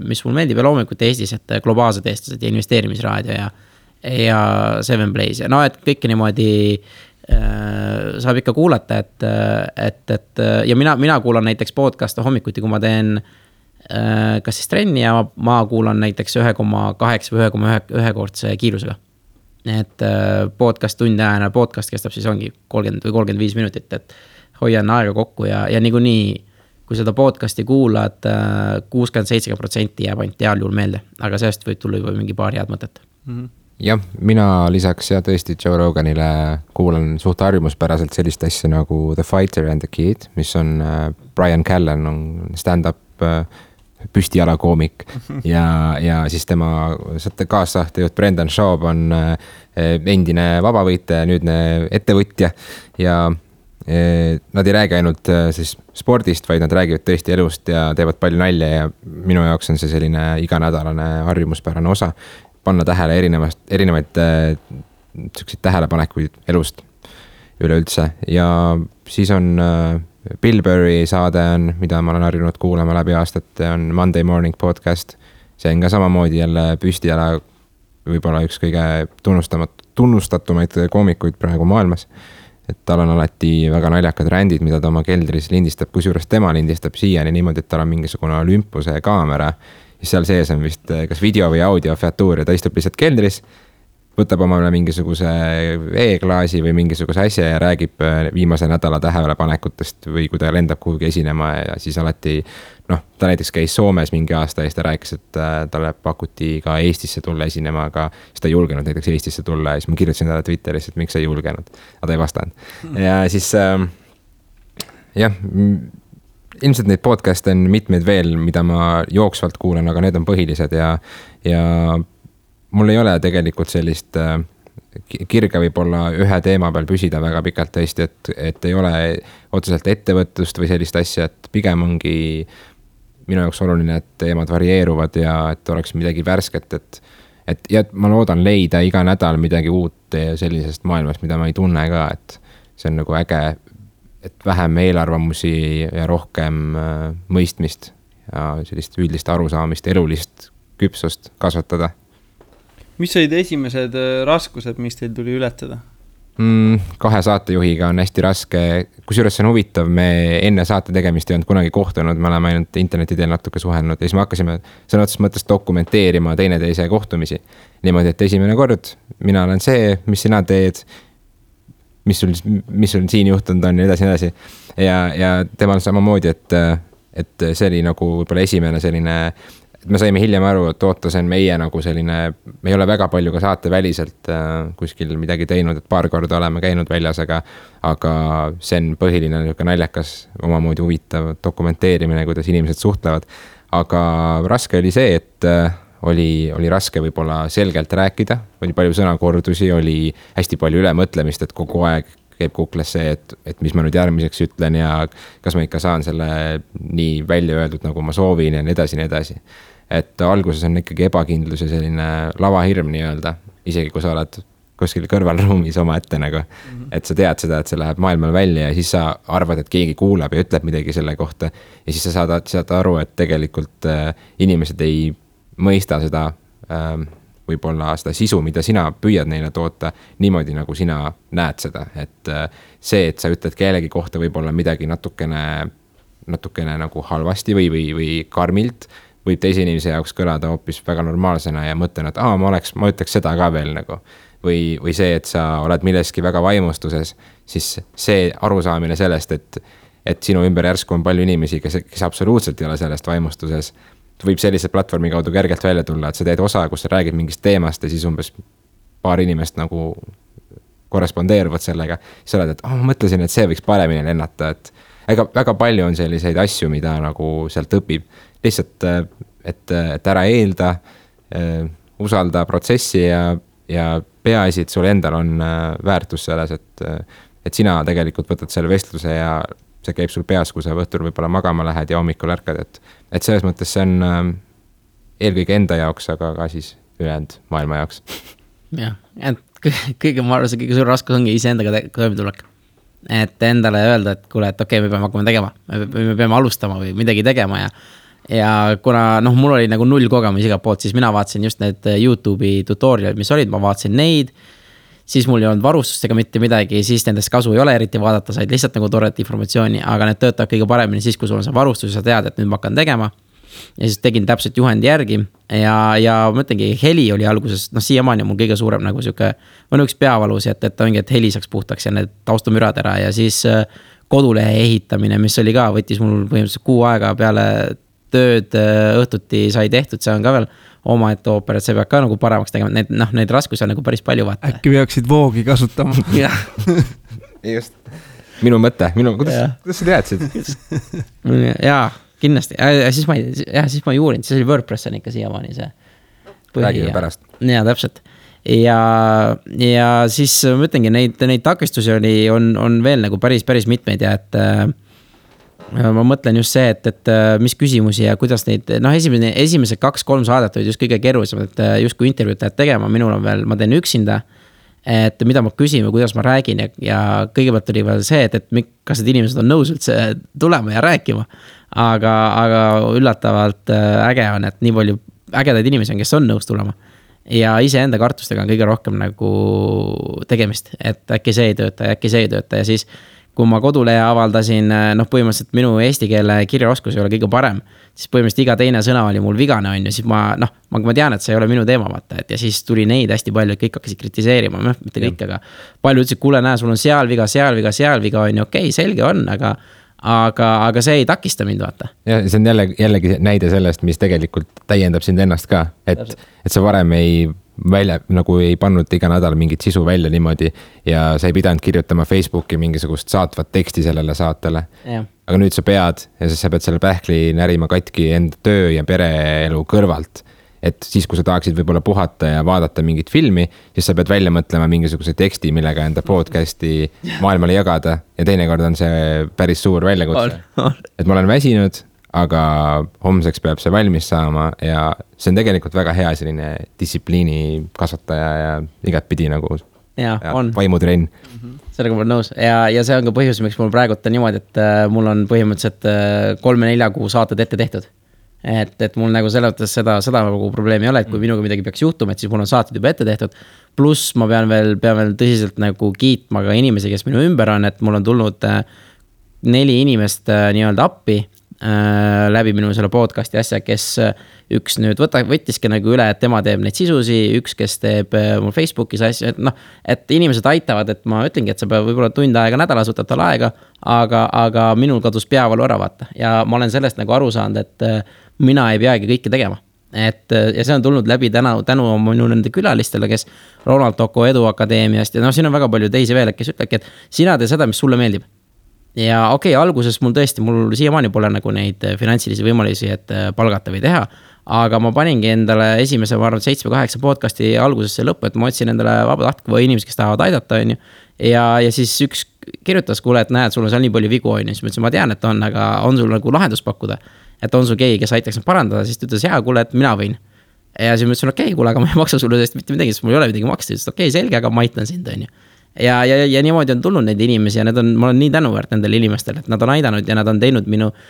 mis mul meeldib ja loomulikult Eestis, et globaalsed eestlased ja investeerimisraadio ja Seven Plays ja et kõike niimoodi saab ikka kuulata, et ja mina kuulan näiteks podcasta hommikuti, kui ma teen kas siis trenni ja ma kuulan näiteks 1,8 või 1,1 kordse kiirusega. Et podcast tunde ajana, podcast kestab siis ongi 30 või 35 minutit, et hoian aega kokku ja niikuinii, kui seda podcasti kuulad, 60-70% jääb ainult heal juhul meelde, aga sellest võib tulla juba mingi paar head mõtet. Jah, mina lisaks tõesti Joe Roganile kuulan suht harjumuspäraselt sellist asja nagu The Fighter and the Kid, mis on Brian Callen on stand-up püstijalakoomik ja siis tema kaassahtejuht Brendan Schaub on endine vabavõitja ja nüüdne ettevõtja ja nad ei räägi ainult siis spordist, vaid nad räägivad tõesti elust ja teevad palju nalja ja minu jaoks on see selline iganädalane harjumuspärane osa panna tähele erinevaid tähelepanekuid elust üleüldse ja siis on Bill Burry saade on, mida ma olen harjunud kuulama läbi aastate, on Monday Morning Podcast. See on ka samamoodi jälle püstijala võib-olla üks kõige tunnustatumaid koomikuid praegu maailmas. Et tal on alati väga naljakad rändid, mida ta oma keldris lindistab, kusjuures tema lindistab siiani niimoodi, et tal on mingisugune olümpuse kaamera. Ja seal sees on vist kas video või audio featuur ja ta istub lihtsalt keldris, võtab omale mingisuguse e-klaasi või mingisuguse asja ja räägib viimase nädala tähelepanekutest või kui ta lendab kuhugi esinema ja siis alati, ta näiteks käis Soomes mingi aasta ja siis ta rääkis, et talle pakuti ka Eestisse tulla esinema, aga siis ta ei julgenud näiteks Eestisse tulla ja siis ma kirjutasin talle Twitteris, et miks sa ei julgenud, aga ta ei vastanud. Ja siis ilmselt neid podcast on mitmeid veel, mida ma jooksvalt kuulan, aga need on põhilised ja mul ei ole tegelikult sellist kirge võib-olla ühe teema peal püsida väga pikalt tõesti, et ei ole otseselt ettevõtlust või sellist asja, et pigem ongi minu jaoks oluline, et teemad varieeruvad ja et oleks midagi värsket, et ma loodan leida iga nädal midagi uut sellisest maailmast, mida ma ei tunne ka, et see on nagu äge, et vähem eelarvamusi ja rohkem mõistmist ja sellist üldist arusaamist, elulist küpsust kasvatada. Mis olid esimesed raskused, mis teil tuli ületada? 2 saatejuhiga on hästi raske, kusjuures see on huvitav, me enne saate tegemist ei olnud kunagi kohtunud, me oleme ainult interneti teel natuke suhelnud ja siis me hakkasime sõna otseses mõttes dokumenteerima teineteise kohtumisi. Niimoodi, et esimene kord, mina olen see, mis sina teed, mis sul siin juhtunud on ja edasi. Ja temal samamoodi, et see oli nagu võib-olla esimene selline, me saime hiljem aru, et oota, see on meie nagu selline, me ei ole väga palju ka saate väliselt kuskil midagi teinud, et paar korda oleme käinud väljas, aga see on põhiline naljakas, omamoodi huvitav dokumenteerimine, kuidas inimesed suhtlevad. Aga raske oli see, et oli raske võib-olla selgelt rääkida, oli palju sõnakordusi, oli hästi palju ülemõtlemist, et kogu aeg käib kukles see, et mis ma nüüd järgmiseks ütlen ja kas ma ikka saan selle nii välja öeldud, nagu ma soovin ja nii edasi. Et alguses on ikkagi ebakindlus ja selline lavahirm nii öelda, isegi kui sa oled kuskil kõrvalruumis oma ette nagu. et sa tead seda, et see läheb maailmale välja ja siis sa arvad, et keegi kuulab ja ütleb midagi selle kohta. Ja siis sa saad aru, et tegelikult inimesed ei mõista seda võib-olla seda sisu, mida sina püüad neile toota niimoodi, nagu sina näed seda. Et see, et sa ütled kellegi kohta võib-olla midagi natukene nagu halvasti või karmilt, võib teise inimese jaoks kõlada hoopis väga normaalsena ja mõtlen, et ma ütleks seda ka veel nagu. Või see, et sa oled milleski väga vaimustuses, siis see arusaamine sellest, et sinu ümber järsku on palju inimesi, kes absoluutselt ei ole sellest vaimustuses, võib sellise platvormi kaudu kergelt välja tulla, et sa teed osa, kus sa räägid mingist teemast ja siis umbes paar inimest nagu korrespondeeruvad sellega. Siis oled, et ma mõtlesin, et see võiks paremini lennata, et väga palju on selliseid asju, mida nagu sealt õpib. Lihtsalt, et ära eelda, usalda protsessi ja peaasi, et sul endal on väärtus selles, et sina tegelikult võtad selle vestluse ja see käib sul peas, kui sa õhtul võib-olla magama lähed ja hommikul ärkad, et selles mõttes see on eelkõige enda jaoks, aga ka siis ülejäänud maailma jaoks. Jah, et ma arvan, see kõige suur raskus ongi iseendaga toimetulek. Et endale öelda, et kuule, et okei, me peame hakkama tegema, me peame alustama või midagi tegema ja kuna mul oli nagu 0 kogemus iga poolt, siis mina vaatasin just need YouTube'i tutorialid, mis olid, ma vaatasin neid, siis mul ei olnud varustustega mitte midagi, siis nendest kasu ei ole eriti vaadata, said lihtsalt nagu toredat informatsiooni, aga need töötavad kõige paremini siis, kui sul on see varustus ja sa tead, et nüüd ma hakkan tegema. Ja siis tegin täpselt juhendi järgi ja mõtlengi, heli oli alguses, siiamaani on mul kõige suurem nagu siuke, on üks peavalus, et ongi, et heli saaks puhtaks ja need taustamürad ära ja siis kodulehe ehitamine, mis oli ka, võttis mul põhimõtteliselt 6 aega peale tööd õhtuti sai tehtud, see on ka veel oma ette ooper, et see peab ka nagu paremaks tegema, neid raskusi on nagu päris palju vaata. Äkki peaksid voogi kasutama. Just, minu mõte, kuidas sa teadsid? Jaa, kindlasti, siis ma ei uurinud, siis oli WordPress on ikka siiamaani see. Räägime pärast. Jaa, täpselt. Ja siis ma ütlengi, neid takistusi on veel nagu päris mitmeid ja et ma mõtlen just see, et mis küsimusi ja kuidas neid, esimesed 2-3 saadet olid just kõige keerulisem, et just kui intervjuud lähed tegema, minul on veel, ma teen üksinda, et mida ma küsin või kuidas ma räägin ja kõigepealt oli veel see, et kas need inimesed on nõus üldse tulema ja rääkima, aga üllatavalt äge on, et nii palju ägedaid inimesi on, kes on nõus tulema ja iseenda kartustega on kõige rohkem nagu tegemist, et äkki see ei tööta ja siis kui ma kodulehe avaldasin, põhimõtteliselt minu eesti keele kirjaoskus ei ole kõige parem, siis põhimõtteliselt iga teine sõna oli mul vigane on ja siis ma tean, et see ei ole minu teema vaata, et ja siis tuli neid hästi palju, et kõik hakkasid kritiseerima, mitte kõik, aga palju ütlesid, kuule näe, sul on seal viga on ju, okei, selge on, aga see ei takista mind vaata. Ja see on jällegi näide sellest, mis tegelikult täiendab sind ennast ka, et sa varem nagu ei pannud iga nädal mingit sisu välja niimoodi ja sa ei pidanud kirjutama Facebooki mingisugust saatvat teksti sellele saatele. Aga nüüd sa pead ja sa pead selle pähkli närima katki enda töö ja pereelu kõrvalt. Et siis, kui sa tahaksid võib-olla puhata ja vaadata mingit filmi, siis sa pead välja mõtlema mingisuguse teksti, millega enda podcasti maailmale jagada ja teinekord on see päris suur väljakutse. Et ma olen väsinud, aga homseks peab see valmis saama ja see on tegelikult väga hea selline distsipliini kasvataja ja igatpidi nagu vaimutrenn. Sellega ma olen nõus ja see on ka põhjus, miks mul praegu on niimoodi, et mul on põhimõtteliselt 3-4 kuu saated ette tehtud. Et mul nagu selles mõttes seda nagu probleemi ei ole, et kui minuga midagi peaks juhtuma, et siis mul on saated juba ette tehtud. Pluss ma pean veel tõsiselt nagu kiitma ka inimesi, kes minu ümber on, et mul on tulnud 4 inimest nii-öelda appi läbi minu selle podcasti asja, kes üks nüüd võttiski nagu üle, et tema teeb neid sisusi, üks, kes teeb mul Facebookis asja, et inimesed aitavad, et ma ütlengi, et sa peab võib-olla tund aega nädalas võtad tal aega, aga minul kadus peavalu ära vaata ja ma olen sellest nagu aru saanud, et mina ei peagi kõike tegema. Ja see on tulnud läbi tänu minu nende külalistele, kes Ronald Toko Edu Akadeemiast ja siin on väga palju teisi veel, kes ütlebki, et sina tee seda, mis sulle meeldib. Ja okei, alguses mul siiamaani pole nagu neid finantsilisi võimalusi, et palgata või teha, aga ma paningi endale esimese, ma arvan, 7-8 podcasti algusesse lõppu, et ma otsin endale vabatahtlikke või inimesi, kes tahavad aidata, on ju. Ja siis üks kirjutas, kuule, et näed, sul on seal nii palju vigu, on ju, siis ma ütlesin, ma tean, et on, aga on sul nagu lahendus pakkuda, et on sul keegi, kes aitaks neid parandada, siis ta ütles, jaa, kuule, et mina võin. Ja siis ma ütlesin, okei, kuule, aga ma ei maksa sulle tõesti mitte midagi, sest mul ei ole midagi maksta, siis okei, selge, aga ma aitan sind, on ju. ja niimoodi on tulnud neid inimesi ja ma olen nii tänuväärt nendele inimestele, et nad on aidanud ja nad on teinud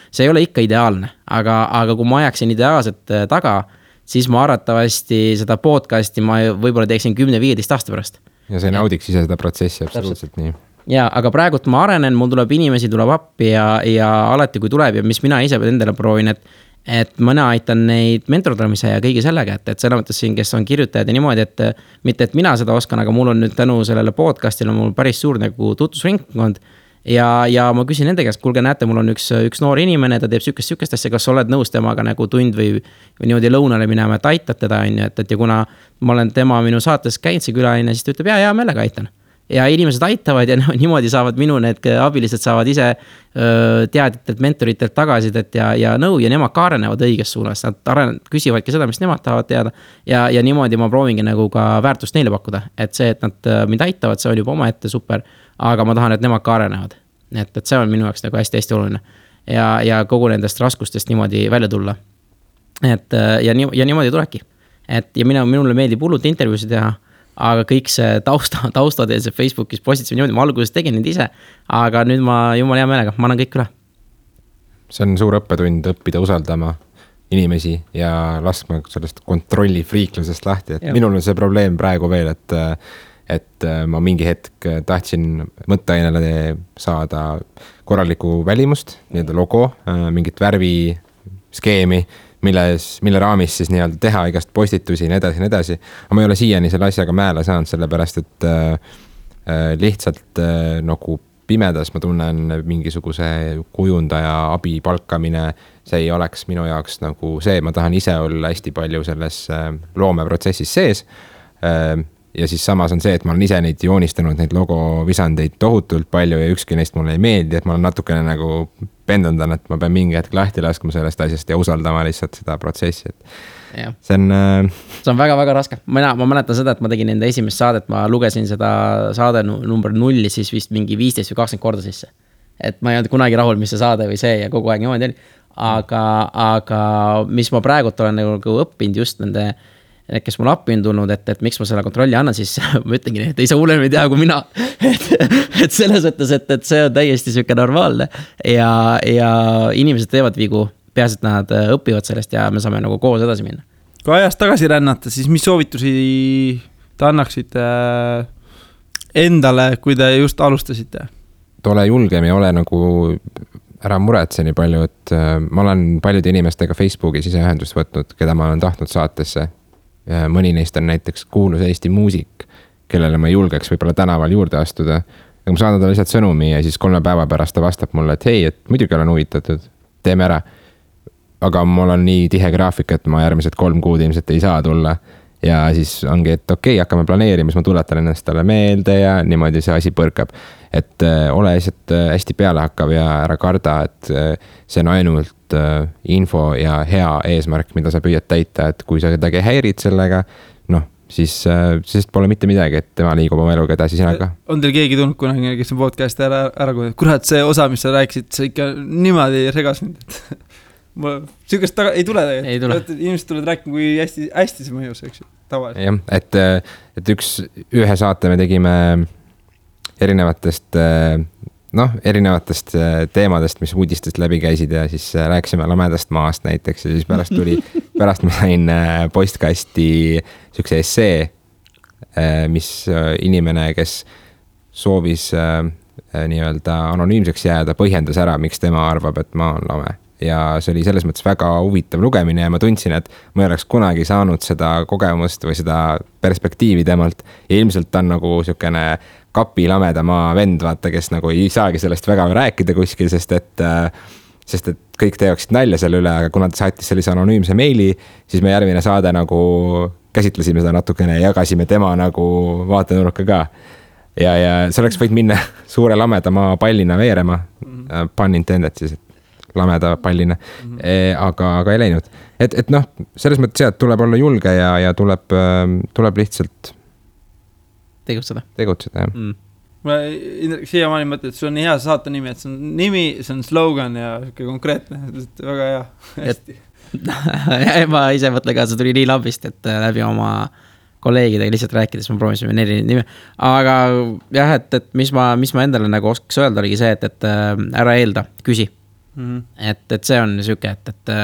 see ei ole ikka ideaalne, aga kui ma ajaksin ideaalset taga, siis ma arvatavasti seda podcasti ma võib-olla teeksin 10-15 aasta pärast. Ja see naudiks ise seda protsessi absoluutselt nii. Ja, aga praegult ma arenen, mul tuleb inimesi, tuleb appi ja alati kui tuleb ja mis mina ise endale proovin, et mõne aitan neid mentordamise ja kõigi sellega, et selle mõttes siin, kes on kirjutajad ja niimoodi, et mitte, et mina seda oskan, aga mul on nüüd tänu sellele podcastile mul päris suur nagu tutvusringkond ja ma küsin nende käest, kuulge, näete, mul on üks noor inimene, ta teeb sükest asja, kas oled nõus temaga nagu tund või niimoodi lõunale minema, et aitad teda, et ja kuna ma olen tema minu saates käinud see külaline, siis ta ütleb, ja meelega aitan. Ja inimesed aitavad ja niimoodi saavad minu need abilised saavad ise teadjatelt, mentoritelt tagasidet ja nõu ja nemad ka arenevad õiges suunas. Nad küsivadki seda, mis nemad tahavad teada ja niimoodi ma proovingi nagu ka väärtust neile pakkuda. Et see, et nad mind aitavad, see on juba oma ette super, aga ma tahan, et nemad ka arenevad. Et see on minu jaoks nagu hästi-hästi oluline. Ja kogu nendest raskustest niimoodi välja tulla. Ja niimoodi tulebki. Ja minule meeldib hullult intervjuusid teha, aga kõik see taustad ja see Facebookis postitused niimoodi, ma alguses tegin neid ise, aga nüüd ma jumala hea meelega, ma annan kõik üle. See on suur õppetund õppida usaldama inimesi ja laskma sellest kontrollifriiklusest lahti, et minul on see probleem praegu veel, et ma mingi hetk tahtsin mõtteainele saada korralikku välimust, nii-öelda logo, mingit värviskeemi, mille raamis siis nii-öelda teha igast postitusi ja nii edasi. Aga ma ei ole siiani selle asjaga määle saanud, sellepärast et lihtsalt nagu pimedas ma tunnen mingisuguse kujundaja abi palkamine, see ei oleks minu jaoks nagu see, ma tahan ise olla hästi palju selles loomeprotsessis sees. Ja siis samas on see, et ma olen ise neid joonistanud, neid logovisandeid tohutult palju ja ükski neist mulle ei meeldi, et ma olen natukene nagu pendandan, et ma pean mingi hetk lahti laskma sellest asjast ja usaldama lihtsalt seda protsessi. See on väga-väga raske. Ma mäletan seda, et ma tegin enda esimest saadet, ma lugesin seda saade number 0 siis vist mingi 15 või 20 korda sisse. Et ma ei olnud kunagi rahul, mis see saade või see ja kogu aeg niimoodi oli. Aga mis ma praegult olen nagu õppinud just nende kes mul appi on tulnud, et miks ma selle kontrolli annan, siis ma ütlengi, et ei saa hullem ei tea kui mina. Et selles mõttes, et see on täiesti süke normaalne ja inimesed teevad vigu, peaasi, et nad õpivad sellest ja me saame nagu koos edasi minna. Kui ajast tagasi rännata, siis mis soovitusi te annaksite endale, kui te just alustasite? Ole julgem ja ole nagu ära muretse nii palju, et ma olen paljude inimestega Facebookis ise ühendust võtnud, keda ma olen tahtnud saatesse. Mõni neist on näiteks kuulus Eesti muusik, kellele ma julgeks võib-olla tänaval juurde astuda. Aga ma saan talle lihtsalt sõnumi ja siis 3 päeva pärast ta vastab mulle, et hei, et muidugi olen huvitatud, teeme ära. Aga mul on nii tihe graafik, et ma järgmised 3 kuud ilmselt ei saa tulla. Ja siis ongi, et okei, hakkame planeerima, siis ma tuletan ennast talle meelde ja niimoodi see asi põrkab. Et ole lihtsalt hästi pealehakkav ja ära karda, et see on ainult info ja hea eesmärk, mida sa püüad täita, et kui sa kedagi häirid sellega, siis pole mitte midagi, et tema liigub oma eluga edasi sina ka. On teil keegi tulnud kunagi, kes on podcasti ära kurat, see osa, mis sa rääkisid, see ikka niimoodi regas mind, et sükest ei tule tegelikult. Inimesed tulevad rääkima, kui hästi see mõjus, eks ju, tavaliselt. Jah, et ühe saate me tegime erinevatest teemadest, mis uudistest läbi käisid ja siis rääkisime lamedast maast näiteks ja siis pärast ma sain postkasti sükse essee, mis inimene, kes soovis nii-öelda anonüümseks jääda, põhjendas ära, miks tema arvab, et ma olen lame. Ja see oli selles mõttes väga huvitav lugemine ja ma tundsin, et ma ei oleks kunagi saanud seda kogemust või seda perspektiivi temalt ja ilmselt ta on nagu sükene kapi lameda maa vend, vaata, kes nagu ei saagi sellest väga rääkida kuskil, sest et kõik teeksid nalja selle üle, aga kuna ta saatis sellise anonüümse meili, siis me järgmine saade nagu käsitlesime seda natukene ja jagasime tema nagu vaatenurka ka. Ja see oleks võid minna suure lameda maa pallina veerema, pun intended siis, lameda pallina, aga ei läinud. Et selles mõttes jah, et tuleb olla julge ja tuleb lihtsalt tegutseda, jah. Ma siia maani mõtlen, et see on hea saate nimi, et see on nimi, see on slogan ja konkreetne, väga hea, hästi. Ma ise mõtlen ka, see tuli nii lambist, et läbi oma kolleegidega lihtsalt rääkides, ma proovisin 4 nime. Aga jah, et mis ma endale nagu oskaks öelda, oligi see, et ära eelda, küsi. Et see on siuke, et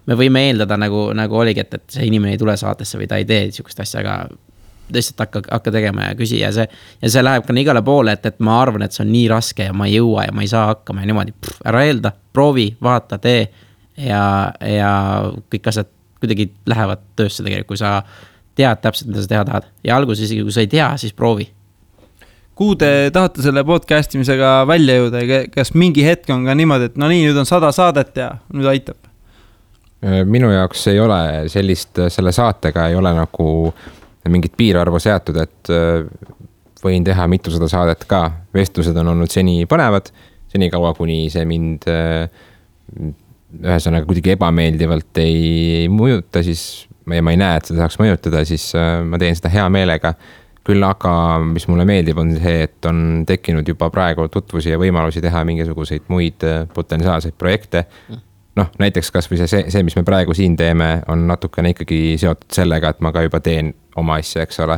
me võime eeldada nagu oligi, et see inimene ei tule saatesse või ta ei tee siukest asja, aga lihtsalt hakka tegema ja küsi ja see läheb ka igale poole, et ma arvan, et see on nii raske ja ma ei jõua ja ma ei saa hakkama ja niimoodi, ära eelda, proovi, vaata, tee ja kõik asjad kuidagi lähevad töösse tegelikult, kui sa tead täpselt, mida sa teha tahad. Ja alguses isegi, kui sa ei tea, siis proovi. Kuhu te tahate selle podcastimisega välja jõuda? Kas mingi hetk on ka niimoodi, et no nii, nüüd on 100 saadet ja nüüd aitab? Minu jaoks ei ole selle saatega ei ole nagu mingit piirarvu seatud, et võin teha mitusada saadet ka. Vestlused on olnud seni põnevad, seni kaua, kuni see mind ühesõnaga kuidagi ebameeldivalt ei mõjuta, siis ma ei näe, et seda saaks mõjutada, siis ma teen seda hea meelega. Küll aga, mis mulle meeldib, on see, et on tekkinud juba praegu tutvusi ja võimalusi teha mingisuguseid muid potentsiaalseid projekte. Noh, näiteks kas või see, mis me praegu siin teeme, on natukene ikkagi seotud sellega, et ma ka juba teen oma asja, eks ole.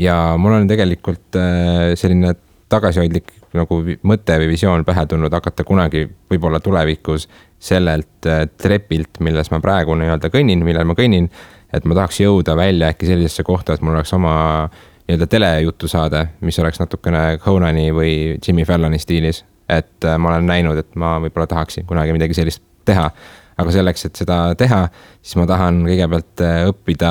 Ja mul on tegelikult selline tagasihoidlik nagu mõte või visioon pähe tulnud hakata kunagi võib-olla tulevikus sellelt trepilt, milles ma praegu kõnnin, millel ma kõnnin, et ma tahaks jõuda välja äkki sellisesse kohta, et mul oleks oma telejutu saade, mis oleks natukene Conani või Jimmy Falloni stiilis. Et ma olen näinud, et ma võib-olla tahaksin kunagi midagi sellist teha. Aga selleks, et seda teha, siis ma tahan kõigepealt õppida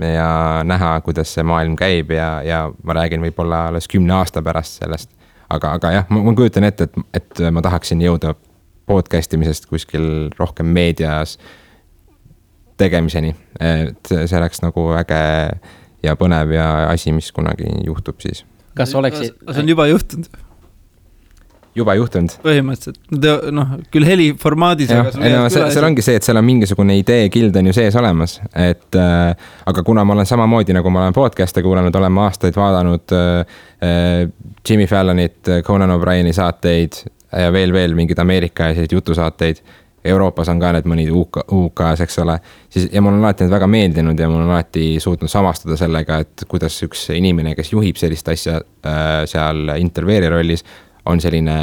ja näha, kuidas see maailm käib ja ma räägin võib-olla alles 10 aasta pärast sellest. Aga jah, ma kujutan ette, et ma tahaksin jõuda podcastimisest kuskil rohkem meedias tegemiseni. Et see oleks nagu äge ja põnev ja asi, mis kunagi juhtub siis. Kas oleksid? See on juba juhtunud? Juba juhtunud. Põhimõtteliselt, küll heliformaadis. Seal ongi see, et seal on mingisugune idee kild on ju sees olemas, aga kuna ma olen samamoodi, nagu ma olen podcast'e kuulanud, olen ma aastaid vaadanud Jimmy Fallonit, Conan O'Brieni saateid ja veel mingid Ameerika ja jutusaateid. Euroopas on ka need mõnid UK-s, eks ole. Ja mul on alati need väga meeldinud ja mul on alati suutnud samastada sellega, et kuidas üks inimene, kes juhib sellist asja seal intervjueeri rollis, on selline,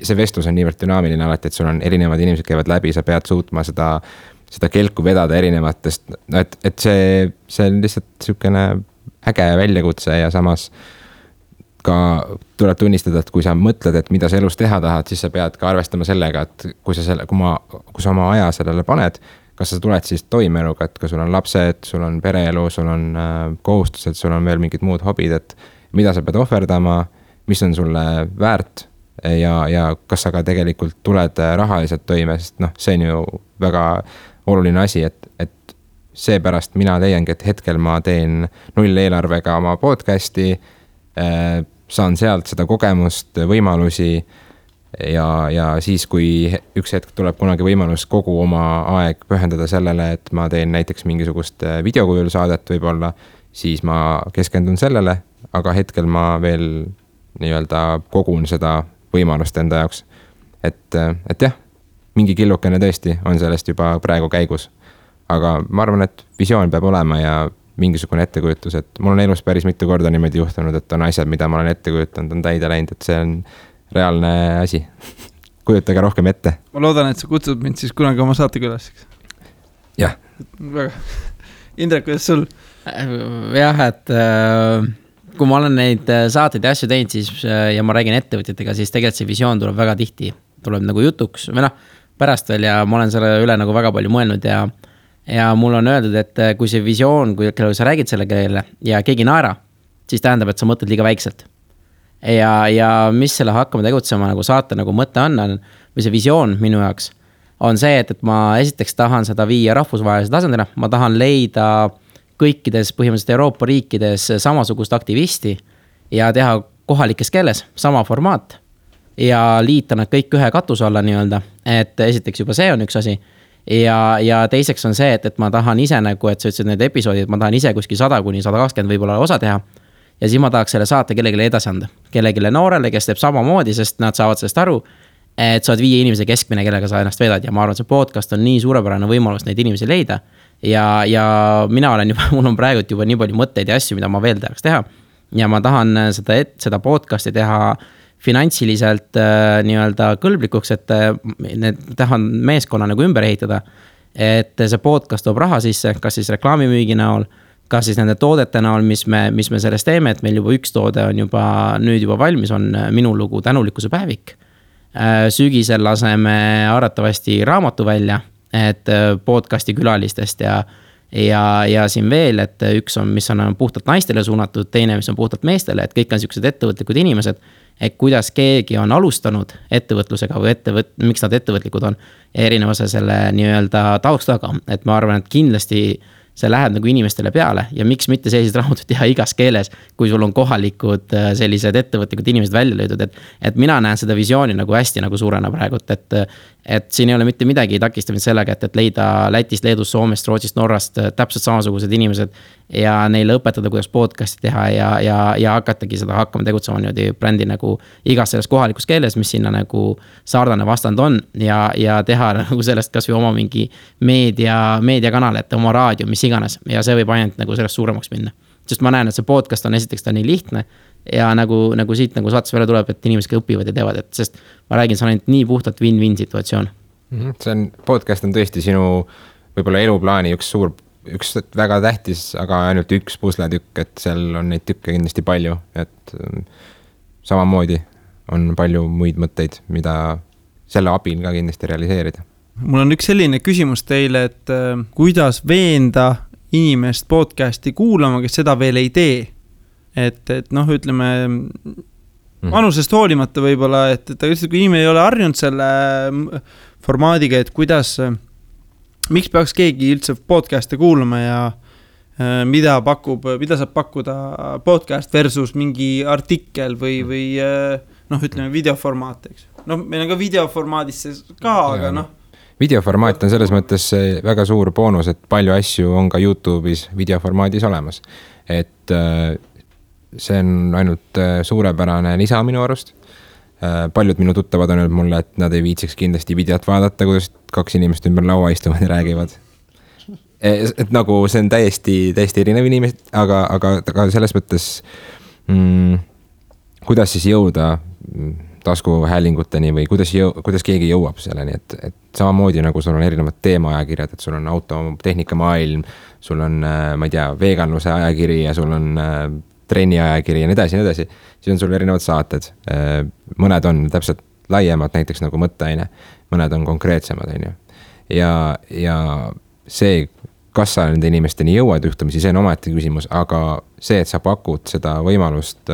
see vestlus on niivõrd dünaamiline alati, et sul on erinevad inimesed käivad läbi, sa pead suutma seda kelku vedada erinevatest, et see on lihtsalt selline äge väljakutse ja samas ka tuleb tunnistada, et kui sa mõtled, et mida sa elus teha tahad, siis sa pead ka arvestama sellega, et kui sa oma aja sellele paned, kas sa tuled siis toimeeluga, et kui sul on lapsed, sul on pereelu, sul on kohustused, sul on veel mingid muud hobid, et mida sa pead ohverdama, mis on sulle väärt ja kas sa ka tegelikult tuled rahaliselt toime, sest see on ju väga oluline asi, et seepärast mina leiangi, et hetkel ma teen 0 eelarvega oma podcasti, saan sealt seda kogemust, võimalusi ja siis, kui üks hetk tuleb kunagi võimalus kogu oma aeg pühendada sellele, et ma teen näiteks mingisugust videokujul saadet võib-olla, siis ma keskendun sellele, aga hetkel ma veel kogun seda võimalust enda jaoks. Et jah, mingi killukene tõesti on sellest juba praegu käigus, aga ma arvan, et visioon peab olema ja mingisugune ettekujutus, et mul on elus päris mitu korda niimoodi juhtunud, et on asjad, mida ma olen ette kujutanud, on täide läinud, et see on reaalne asi. Kujutage rohkem ette. Ma loodan, et sa kutsud mind siis kunagi oma saatekülasiks. Jah. Väga. Indrek, kuidas sul? Jah, et kui ma olen neid saateid ja asju teinud, siis, ja ma räägin ettevõtjatega, siis tegelikult see visioon tuleb väga tihti, tuleb nagu jutuks või pärast veel ja ma olen selle üle nagu väga palju mõelnud ja mul on öeldud, et kui see visioon, kui sa räägid selle keele ja keegi naera, siis tähendab, et sa mõtled liiga väikselt. Ja mis selle hakkama tegutsema nagu saate nagu mõte on, või see visioon minu jaoks, on see, et ma esiteks tahan seda viia rahvusvahelise tasandina, ma tahan leida kõikides põhimõtteliselt Euroopa riikides samasugust aktivisti ja teha kohalikes keeles sama formaat ja liita nad kõik ühe katuse alla nii-öelda, et esiteks juba see on üks asi ja teiseks on see, et ma tahan ise nagu, et sa ütlesid need episoodid, ma tahan ise kuskil 100–120 võib-olla osa teha ja siis ma tahaks selle saate kellegile edasi anda, kellegile noorele, kes teeb samamoodi, sest nad saavad sellest aru, et sa oled 5 inimese keskmine, kellega sa ennast vedad ja ma arvan, see podcast on nii suurepärane võimalus neid inimesi leida ja mina olen juba, mul on praegu juba nii palju mõtteid ja asju, mida ma veel tahaks teha. Ja ma tahan seda podcasti teha finantsiliselt nii-öelda kõlblikuks, et tahan meeskonna nagu ümber ehitada. Et see podcast toob raha sisse, kas siis reklaamimüügi näol, kas siis nende toodete näol, mis me sellest teeme, et meil juba üks toode on nüüd juba valmis, on minu lugu Tänulikkuse päevik. Sügisel laseme arvatavasti raamatu välja, et podcasti külalistest ja siin veel, et üks on, mis on puhtalt naistele suunatud, teine, mis on puhtalt meestele, et kõik on sellised ettevõtlikud inimesed, et kuidas keegi on alustanud ettevõtlusega või miks nad ettevõtlikud on erinevuse selle nii-öelda taustaga, et ma arvan, et kindlasti see läheb nagu inimestele peale ja miks mitte sellised raamatud teha igas keeles, kui sul on kohalikud sellised ettevõtlikud inimesed välja löödud, et mina näen seda visiooni nagu hästi nagu suurena praegult, et siin ei ole mitte midagi takistamist sellega, et leida Lätist, Leedust, Soomest, Rootsist, Norrast täpselt samasugused inimesed ja neile õpetada, kuidas podcasti teha ja hakatagi seda hakkama tegutsema niimoodi brändi nagu igas selles kohalikus keeles, mis sinna nagu saardane vastand on ja teha nagu sellest kas või oma mingi meediakanal, et oma raadio, mis iganes ja see võib ainult nagu sellest suuremaks minna. Sest ma näen, et see podcast on esiteks ta nii lihtne ja nagu siit nagu saates välja tuleb, et inimesed õpivad ja teevad, et sest ma räägin, see on ainult nii puhtalt win-win situatsioon. Podcast on tõesti sinu võib-olla eluplaani üks väga tähtis, aga ainult üks pusletükk, et seal on neid tükke kindlasti palju, et samamoodi on palju muid mõtteid, mida selle abil ka kindlasti realiseerida. Mul on üks selline küsimus teile, et kuidas veenda inimest podcasti kuulama, kes seda veel ei tee. Et ütleme, vanusest hoolimata võib-olla, et kui inimene ei ole harjunud selle formaadiga, et miks peaks keegi üldse podcast'e kuulama ja mida saab pakkuda podcast versus mingi artikkel või ütleme videoformaat, eks. Meil on ka videoformaadis ka, aga Videoformaat on selles mõttes väga suur boonus, et palju asju on ka YouTube'is videoformaadis olemas. Et see on ainult suurepärane lisa minu arust. Paljud minu tuttavad on öelnud mulle, et nad ei viitsiks kindlasti videot vaadata, kuidas kaks inimest ümber laua istuvad ja räägivad. Et nagu see on täiesti erinev inimesed, aga selles mõttes kuidas siis jõuda taskuhäälinguteni või kuidas keegi jõuab selleni, et samamoodi nagu sul on erinevad teemaajakirjad, et sul on autotehnika maailm, sul on, ma ei tea, veganluse ajakiri ja sul on trenni ajakiri ja nii edasi, siis on sul erinevad saated. Mõned on täpselt laiemad, näiteks nagu mõtteaine, mõned on konkreetsemad, on ju. Ja see, kas sa nende inimesteni jõuad juhtumisi, see on omaette küsimus, aga see, et sa pakud seda võimalust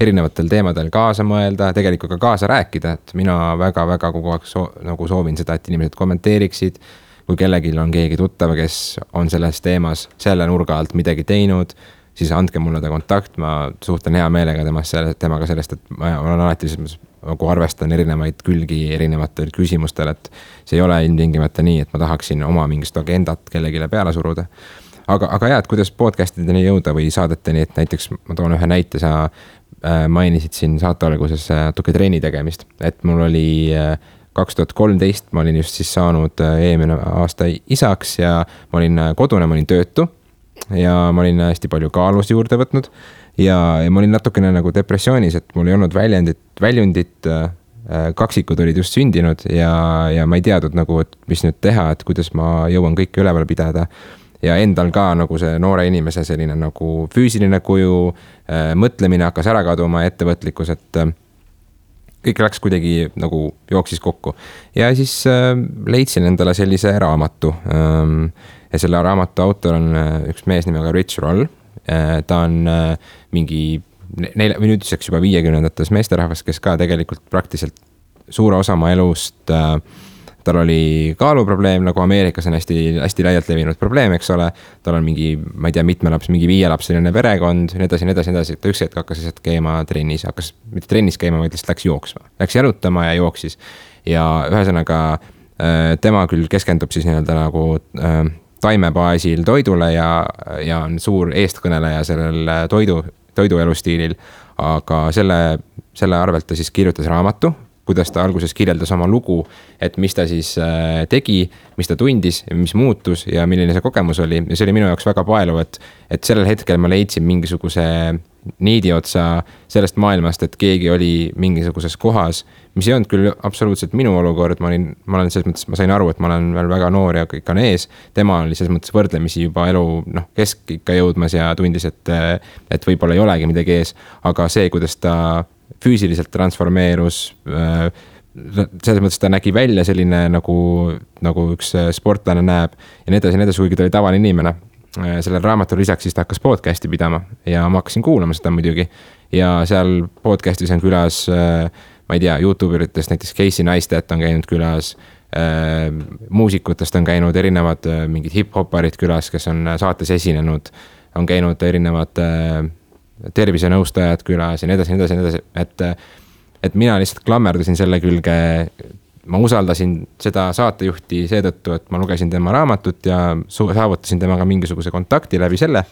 erinevatel teemadel kaasa mõelda, tegelikult ka kaasa rääkida, et mina väga kogu aeg nagu soovin seda, et inimesed kommenteeriksid, kui kellelgi on keegi tuttav, kes on selles teemas selle nurga alt midagi teinud, siis andke mulle ta kontakt, ma suhtlen hea meelega temaga sellest, et ma olen alati nagu arvestan erinevaid külgi erinevatel küsimustel, et see ei ole ilmtingimata nii, et ma tahaksin oma mingist agendat kellegile peale suruda. Aga jah, et kuidas podcastideni jõuda või saadeteni, et näiteks ma toon ühe näite, sa mainisid siin saate alguses natuke treeni tegemist, et mul oli 2013, ma olin just siis saanud eelmine aasta isaks ja ma olin kodune, ma olin töötu ja ma olin hästi palju kaalust juurde võtnud ja ma olin natukene nagu depressioonis, et mul ei olnud väljundit, kaksikud olid just sündinud ja ma ei teadnud nagu, et mis nüüd teha, et kuidas ma jõuan kõike üleval pidada ja endal ka nagu see noore inimese selline nagu füüsiline kuju, mõtlemine hakkas ära kaduma, ettevõtlikkus, et kõik läks kuidagi nagu jooksis kokku ja siis leidsin endale sellise raamatu ja selle raamatu autor on üks mees nimega Rich Roll. Ta on mingi nüüdseks juba 50-ndates meesterahvas, kes ka tegelikult praktiliselt suure osa oma elust, tal oli kaaluprobleem, nagu Ameerikas on hästi laialt levinud probleem, eks ole, tal on mingi, ma ei tea, mingi 5-lapseline perekond, nii edasi, ta üks hetk hakkas lihtsalt käima trennis, mitte trennis käima, vaid lihtsalt läks jooksma, läks jalutama ja jooksis ja ühesõnaga tema küll keskendub siis nii-öelda nagu taimebaasil toidule ja on suur eestkõneleja sellel toidu elustiilil, aga selle arvelt ta siis kirjutas raamatu, kuidas ta alguses kirjeldas oma lugu, et mis ta siis tegi, mis ta tundis, mis muutus ja milline see kogemus oli. Ja see oli minu jaoks väga paeluv, et sellel hetkel ma leidsin mingisuguse niidi otsa sellest maailmast, et keegi oli mingisuguses kohas, mis ei olnud küll absoluutselt minu olukord, ma olen selles mõttes, ma sain aru, et ma olen veel väga noor ja kõik on ees. Tema oli selles mõttes võrdlemisi juba elu keskikka jõudmas ja tundis, et võib-olla ei olegi midagi ees, aga see, kuidas ta füüsiliselt transformeerus, selles mõttes ta nägi välja selline nagu üks sportlane näeb ja nii edasi, kuigi ta oli tavaline inimene. Sellel raamatul lisaks siis ta hakkas podcasti pidama ja ma hakkasin kuulama seda muidugi ja seal podcastis on külas, ma ei tea, YouTuberitest näiteks Casey Neistat on käinud külas, muusikutest on käinud erinevad mingid hip-hoparid külas, kes on saates esinenud, on käinud erinevad tervisenõustajad külas ja nii edasi, et mina lihtsalt klammerdasin selle külge, ma usaldasin seda saatejuhti seetõttu, et ma lugesin tema raamatut ja saavutasin temaga mingisuguse kontakti läbi selle.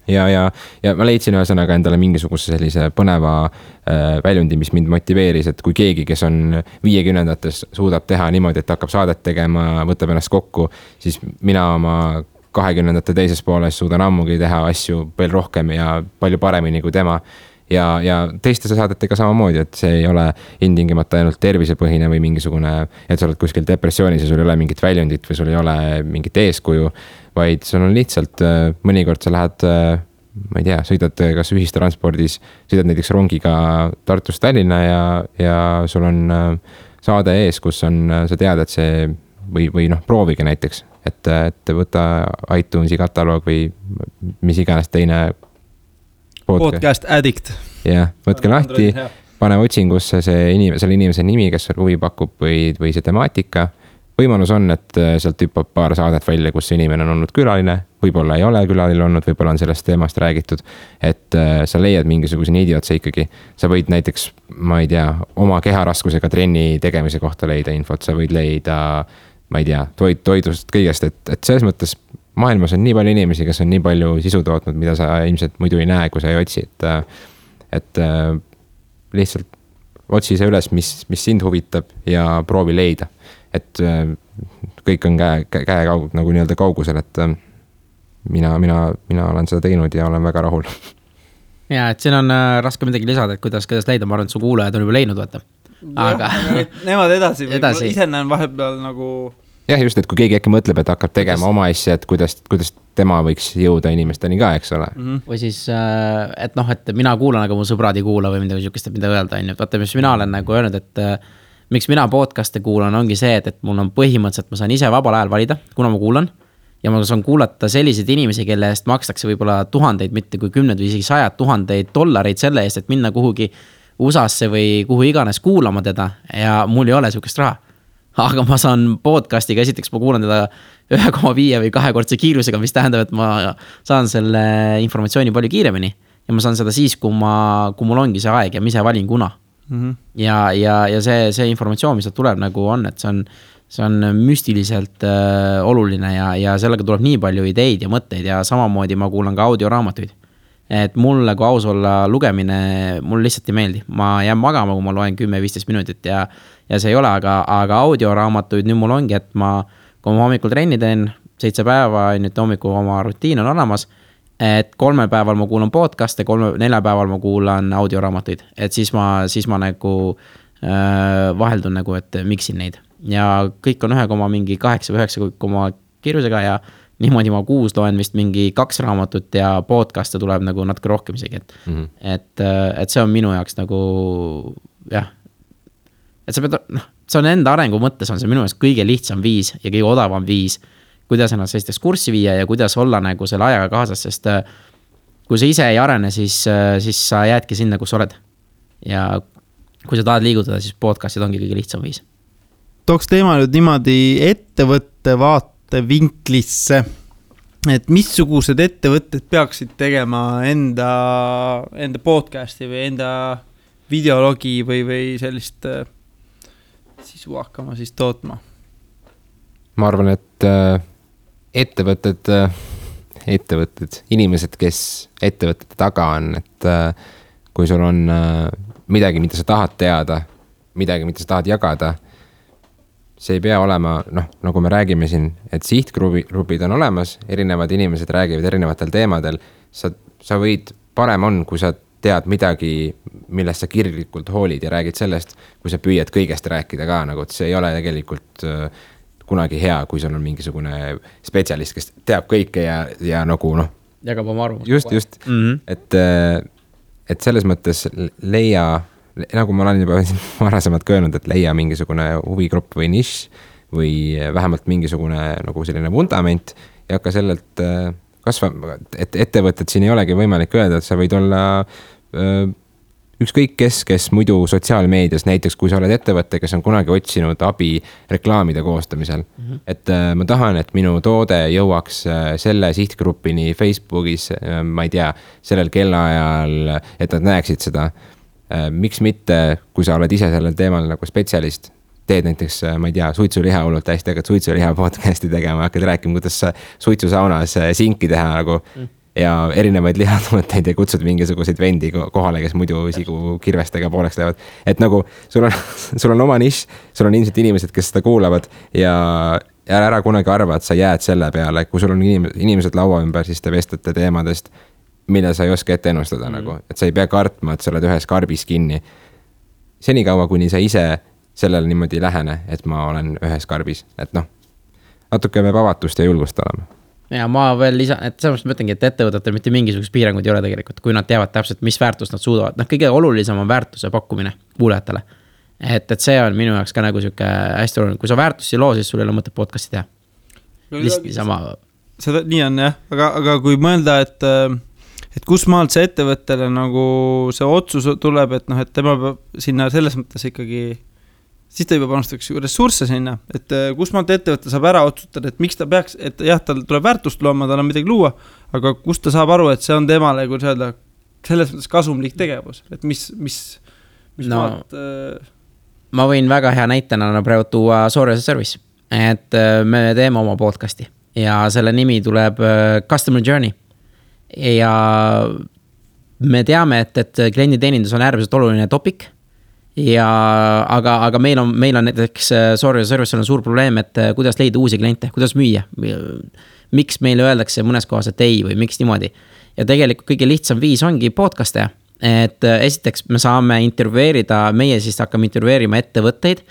Ja ma leidsin ühesõnaga endale mingisuguse sellise põneva väljundi, mis mind motiveeris, et kui keegi, kes on 50-ndates suudab teha niimoodi, et hakkab saadet tegema, võtab ennast kokku, siis mina oma 20-ndate teises pooles suudan ammugi teha asju veel rohkem ja palju paremini kui tema. Ja teiste saadetega samamoodi, et see ei ole intingimata ainult tervisepõhine või mingisugune, et sa oled kuskil depressioonis ja sul ei ole mingit väljundit või sul ei ole mingit eeskuju, vaid sul on lihtsalt mõnikord sa lähed, ma ei tea, sõidad kas ühistranspordis, sõidad näiteks rongiga Tartust Tallinna ja sul on saade ees, kus on, sa tead, et see või proovige näiteks, et võta iTunesi kataloog või mis iganes teine podcast Addict. Jah, võtke lahti, pane otsingusse selle inimese nimi, kes huvi pakub või see temaatika. Võimalus on, et sealt hüppab paar saadet välja, kus inimene on olnud külaline, võib-olla ei ole külaline olnud, võib-olla on sellest teemast räägitud, et sa leiad mingisuguse niidi otsa ikkagi. Sa võid näiteks, ma ei tea, oma keharaskusega trenni tegemise kohta leida infot, sa võid leida, ma ei tea, toidust kõigest, et selles mõttes maailmas on nii palju inimesi, kes on nii palju sisu tootnud, mida sa ilmselt muidu ei näe, kui sa ei otsi, et lihtsalt otsi see üles, mis sind huvitab ja proovi leida. Et kõik on käe nagu nii-öelda kaugusel, et mina olen seda teinud ja olen väga rahul. Ja, et siin on raske midagi lisada, et kuidas leida, ma arvan, et su kuulajad on juba leidnud, vaata. Aga nemad edasi. Ise näen vahepeal nagu jah, just, et kui keegi äkki mõtleb, et hakkab tegema oma asja, et kuidas tema võiks jõuda inimesteni ka, eks ole. Või siis, et mina kuulan, aga mu sõbrad ei kuula või midagi siukest, mida öelda. Vaata, mis mina olen nagu öelnud, et miks mina podcast'e kuulan, ongi see, et mul on põhimõtteliselt, ma saan ise vabal ajal valida, kuna ma kuulan. Ja ma saan kuulata selliseid inimesi, kelle eest makstakse võib-olla tuhandeid, mitte kui 10 või isegi 100 000 $ selle eest, et minna kuhugi USA-sse või kuhu iganes kuulama teda ja mul ei ole siukest raha. Aga ma saan podcastiga, esiteks ma kuulan teda 1,5 või 2-kordse kiirusega, mis tähendab, et ma saan selle informatsiooni palju kiiremini ja ma saan seda siis, kui mul ongi see aeg ja ma ise valin kuna. Ja see informatsioon, mis tuleb nagu on, et see on müstiliselt oluline ja sellega tuleb nii palju ideid ja mõtteid ja samamoodi ma kuulan ka audioraamatuid. Et mulle kui aus olla lugemine, mul lihtsalt ei meeldi. Ma jään magama, kui ma loen 10-15 minutit ja see ei ole, aga audioraamatuid nüüd mul ongi, et kui ma hommikul trenni teen 7 päeva, nüüd hommikul oma rutiin on olemas, et 3 päeval ma kuulan podcast'e, 4 päeval ma kuulan audioraamatuid, et siis ma nagu vaheldun nagu, et miksin neid ja kõik on 1,8 või 9 kiirusega ja niimoodi ma 6 loen vist mingi 2 raamatut ja podcast'e tuleb nagu natuke rohkem isegi, et see on minu jaoks nagu jah, et see on enda arengu mõttes on see minu jaoks kõige lihtsam viis ja kõige odavam viis, kuidas ennast sellisteks kurssi viia ja kuidas olla nagu selle ajaga kaasas, sest kui sa ise ei arene, siis sa jäädki sinna, kus oled ja kui sa tahad liigutada, siis podcast'id ongi kõige lihtsam viis. Tooks teema nüüd niimoodi ettevõtte vaatevinklisse, et missugused ettevõtted peaksid tegema enda podcasti või enda videologi või sellist sisu hakkama siis tootma? Ma arvan, et ettevõtted, inimesed, kes ettevõtete taga on, et kui sul on midagi, mida sa tahad teada, midagi, mida sa tahad jagada, see ei pea olema, noh, nagu me räägime siin, et sihtgrupid on olemas, erinevad inimesed räägivad erinevatel teemadel, sa võid, parem on, kui sa tead midagi, millest sa kirglikult hoolid ja räägid sellest, kui sa püüad kõigest rääkida ka, nagu, et see ei ole tegelikult kunagi hea, kui sul on mingisugune spetsialist, kes teab kõike ja nagu noh. Jagab oma arvust. Just. Et selles mõttes leia, nagu ma olen juba varasemalt öelnud, et leia mingisugune huvigrupp või nišš või vähemalt mingisugune nagu selline vundament ja hakka sellelt et ettevõtted siin ei olegi võimalik öelda, et sa võid olla ükskõik kes muidu sotsiaalmeedias, näiteks kui sa oled ettevõte, kes on kunagi otsinud abi reklaamide koostamisel. Et ma tahan, et minu toode jõuaks selle sihtgrupini Facebookis, ma ei tea, sellel kellaajal, et nad näeksid seda. Miks mitte, kui sa oled ise sellel teemal nagu spetsialist, teed näiteks, ma ei tea, suitsuliha hullult hästi, hakkad suitsuliha podcasti tegema, hakkad rääkima, kuidas sa suitsusaunas sinki teha nagu ja erinevaid lihatooteid ja kutsud mingisuguseid vendi kohale, kes muidu sigu kirvestega pooleks lähevad. Et nagu sul on oma nišš, sul on ilmselt inimesed, kes seda kuulavad ja ära kunagi arva, et sa jääd selle peale, kui sul on inimesed laua ümber, siis te vestlete teemadest, mille sa ei oska ette ennustada nagu, et sa ei pea kartma, et sa oled ühes karbis kinni. Senikaua, kuni sa ise sellele niimoodi lähene, et ma olen ühes karbis, et noh, natuke peab avatust ja julgust olema. Ja ma veel lisan, et selles mõttes mõtlengi, et ettevõtetel mitte mingisugust piiranguid ei ole tegelikult, kui nad teavad täpselt, mis väärtust nad suudavad. Noh, kõige olulisem on väärtuse pakkumine kuulajatele. Et see on minu jaoks ka nagu siuke hästi oluline. Kui sa väärtusi loo, siis sul ei ole mõtet podcasti teha. Lihtsalt sama. Seda nii on jah, aga kui mõelda, et kus maalt see ettevõttele nagu see otsus tuleb, et noh, et tema peab sinna selles mõttes ikkagi siis ta juba panustaks ressursse sinna, et kus maalt ettevõtte saab ära otsustada, et miks ta peaks, et jah, tal tuleb väärtust looma, tal on midagi luua, aga kust ta saab aru, et see on temale, kui öelda, selles mõttes kasumlik tegevus, et mis maalt... Ma võin väga hea näitena praegu tuua Sorry as a Service, et me teeme oma podcasti ja selle nimi tuleb Customer Journey ja me teame, et klienditeenindus on äärmiselt oluline topic ja aga meil on näiteks Sorry as a Service on suur probleem, et kuidas leida uusi kliente, kuidas müüa, miks meile öeldakse mõnes kohas, et ei või miks niimoodi. Ja tegelikult kõige lihtsam viis ongi podcaste, et esiteks me saame intervjueerida, meie siis hakkame intervjueerima ettevõtteid,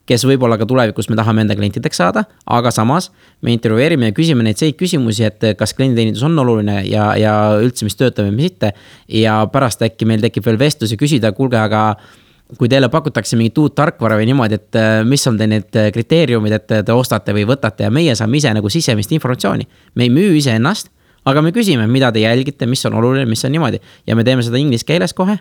kes võib-olla ka tulevikus me tahame enda klientideks saada, aga samas me intervjueerime ja küsime neid küsimusi, et kas klienditeenindus on oluline ja üldse mis töötab ja mis mitte ja pärast äkki meil tekib veel vestlus ja küsida, kuulge, aga kui teile pakutakse mingit uut tarkvara või niimoodi, et mis on teil need kriteeriumid, et te ostate või võtate ja meie saame ise nagu sisemist informatsiooni. Me ei müü ise ennast, aga me küsime, mida te jälgite, mis on oluline, mis on niimoodi. Ja me teeme seda inglise keeles kohe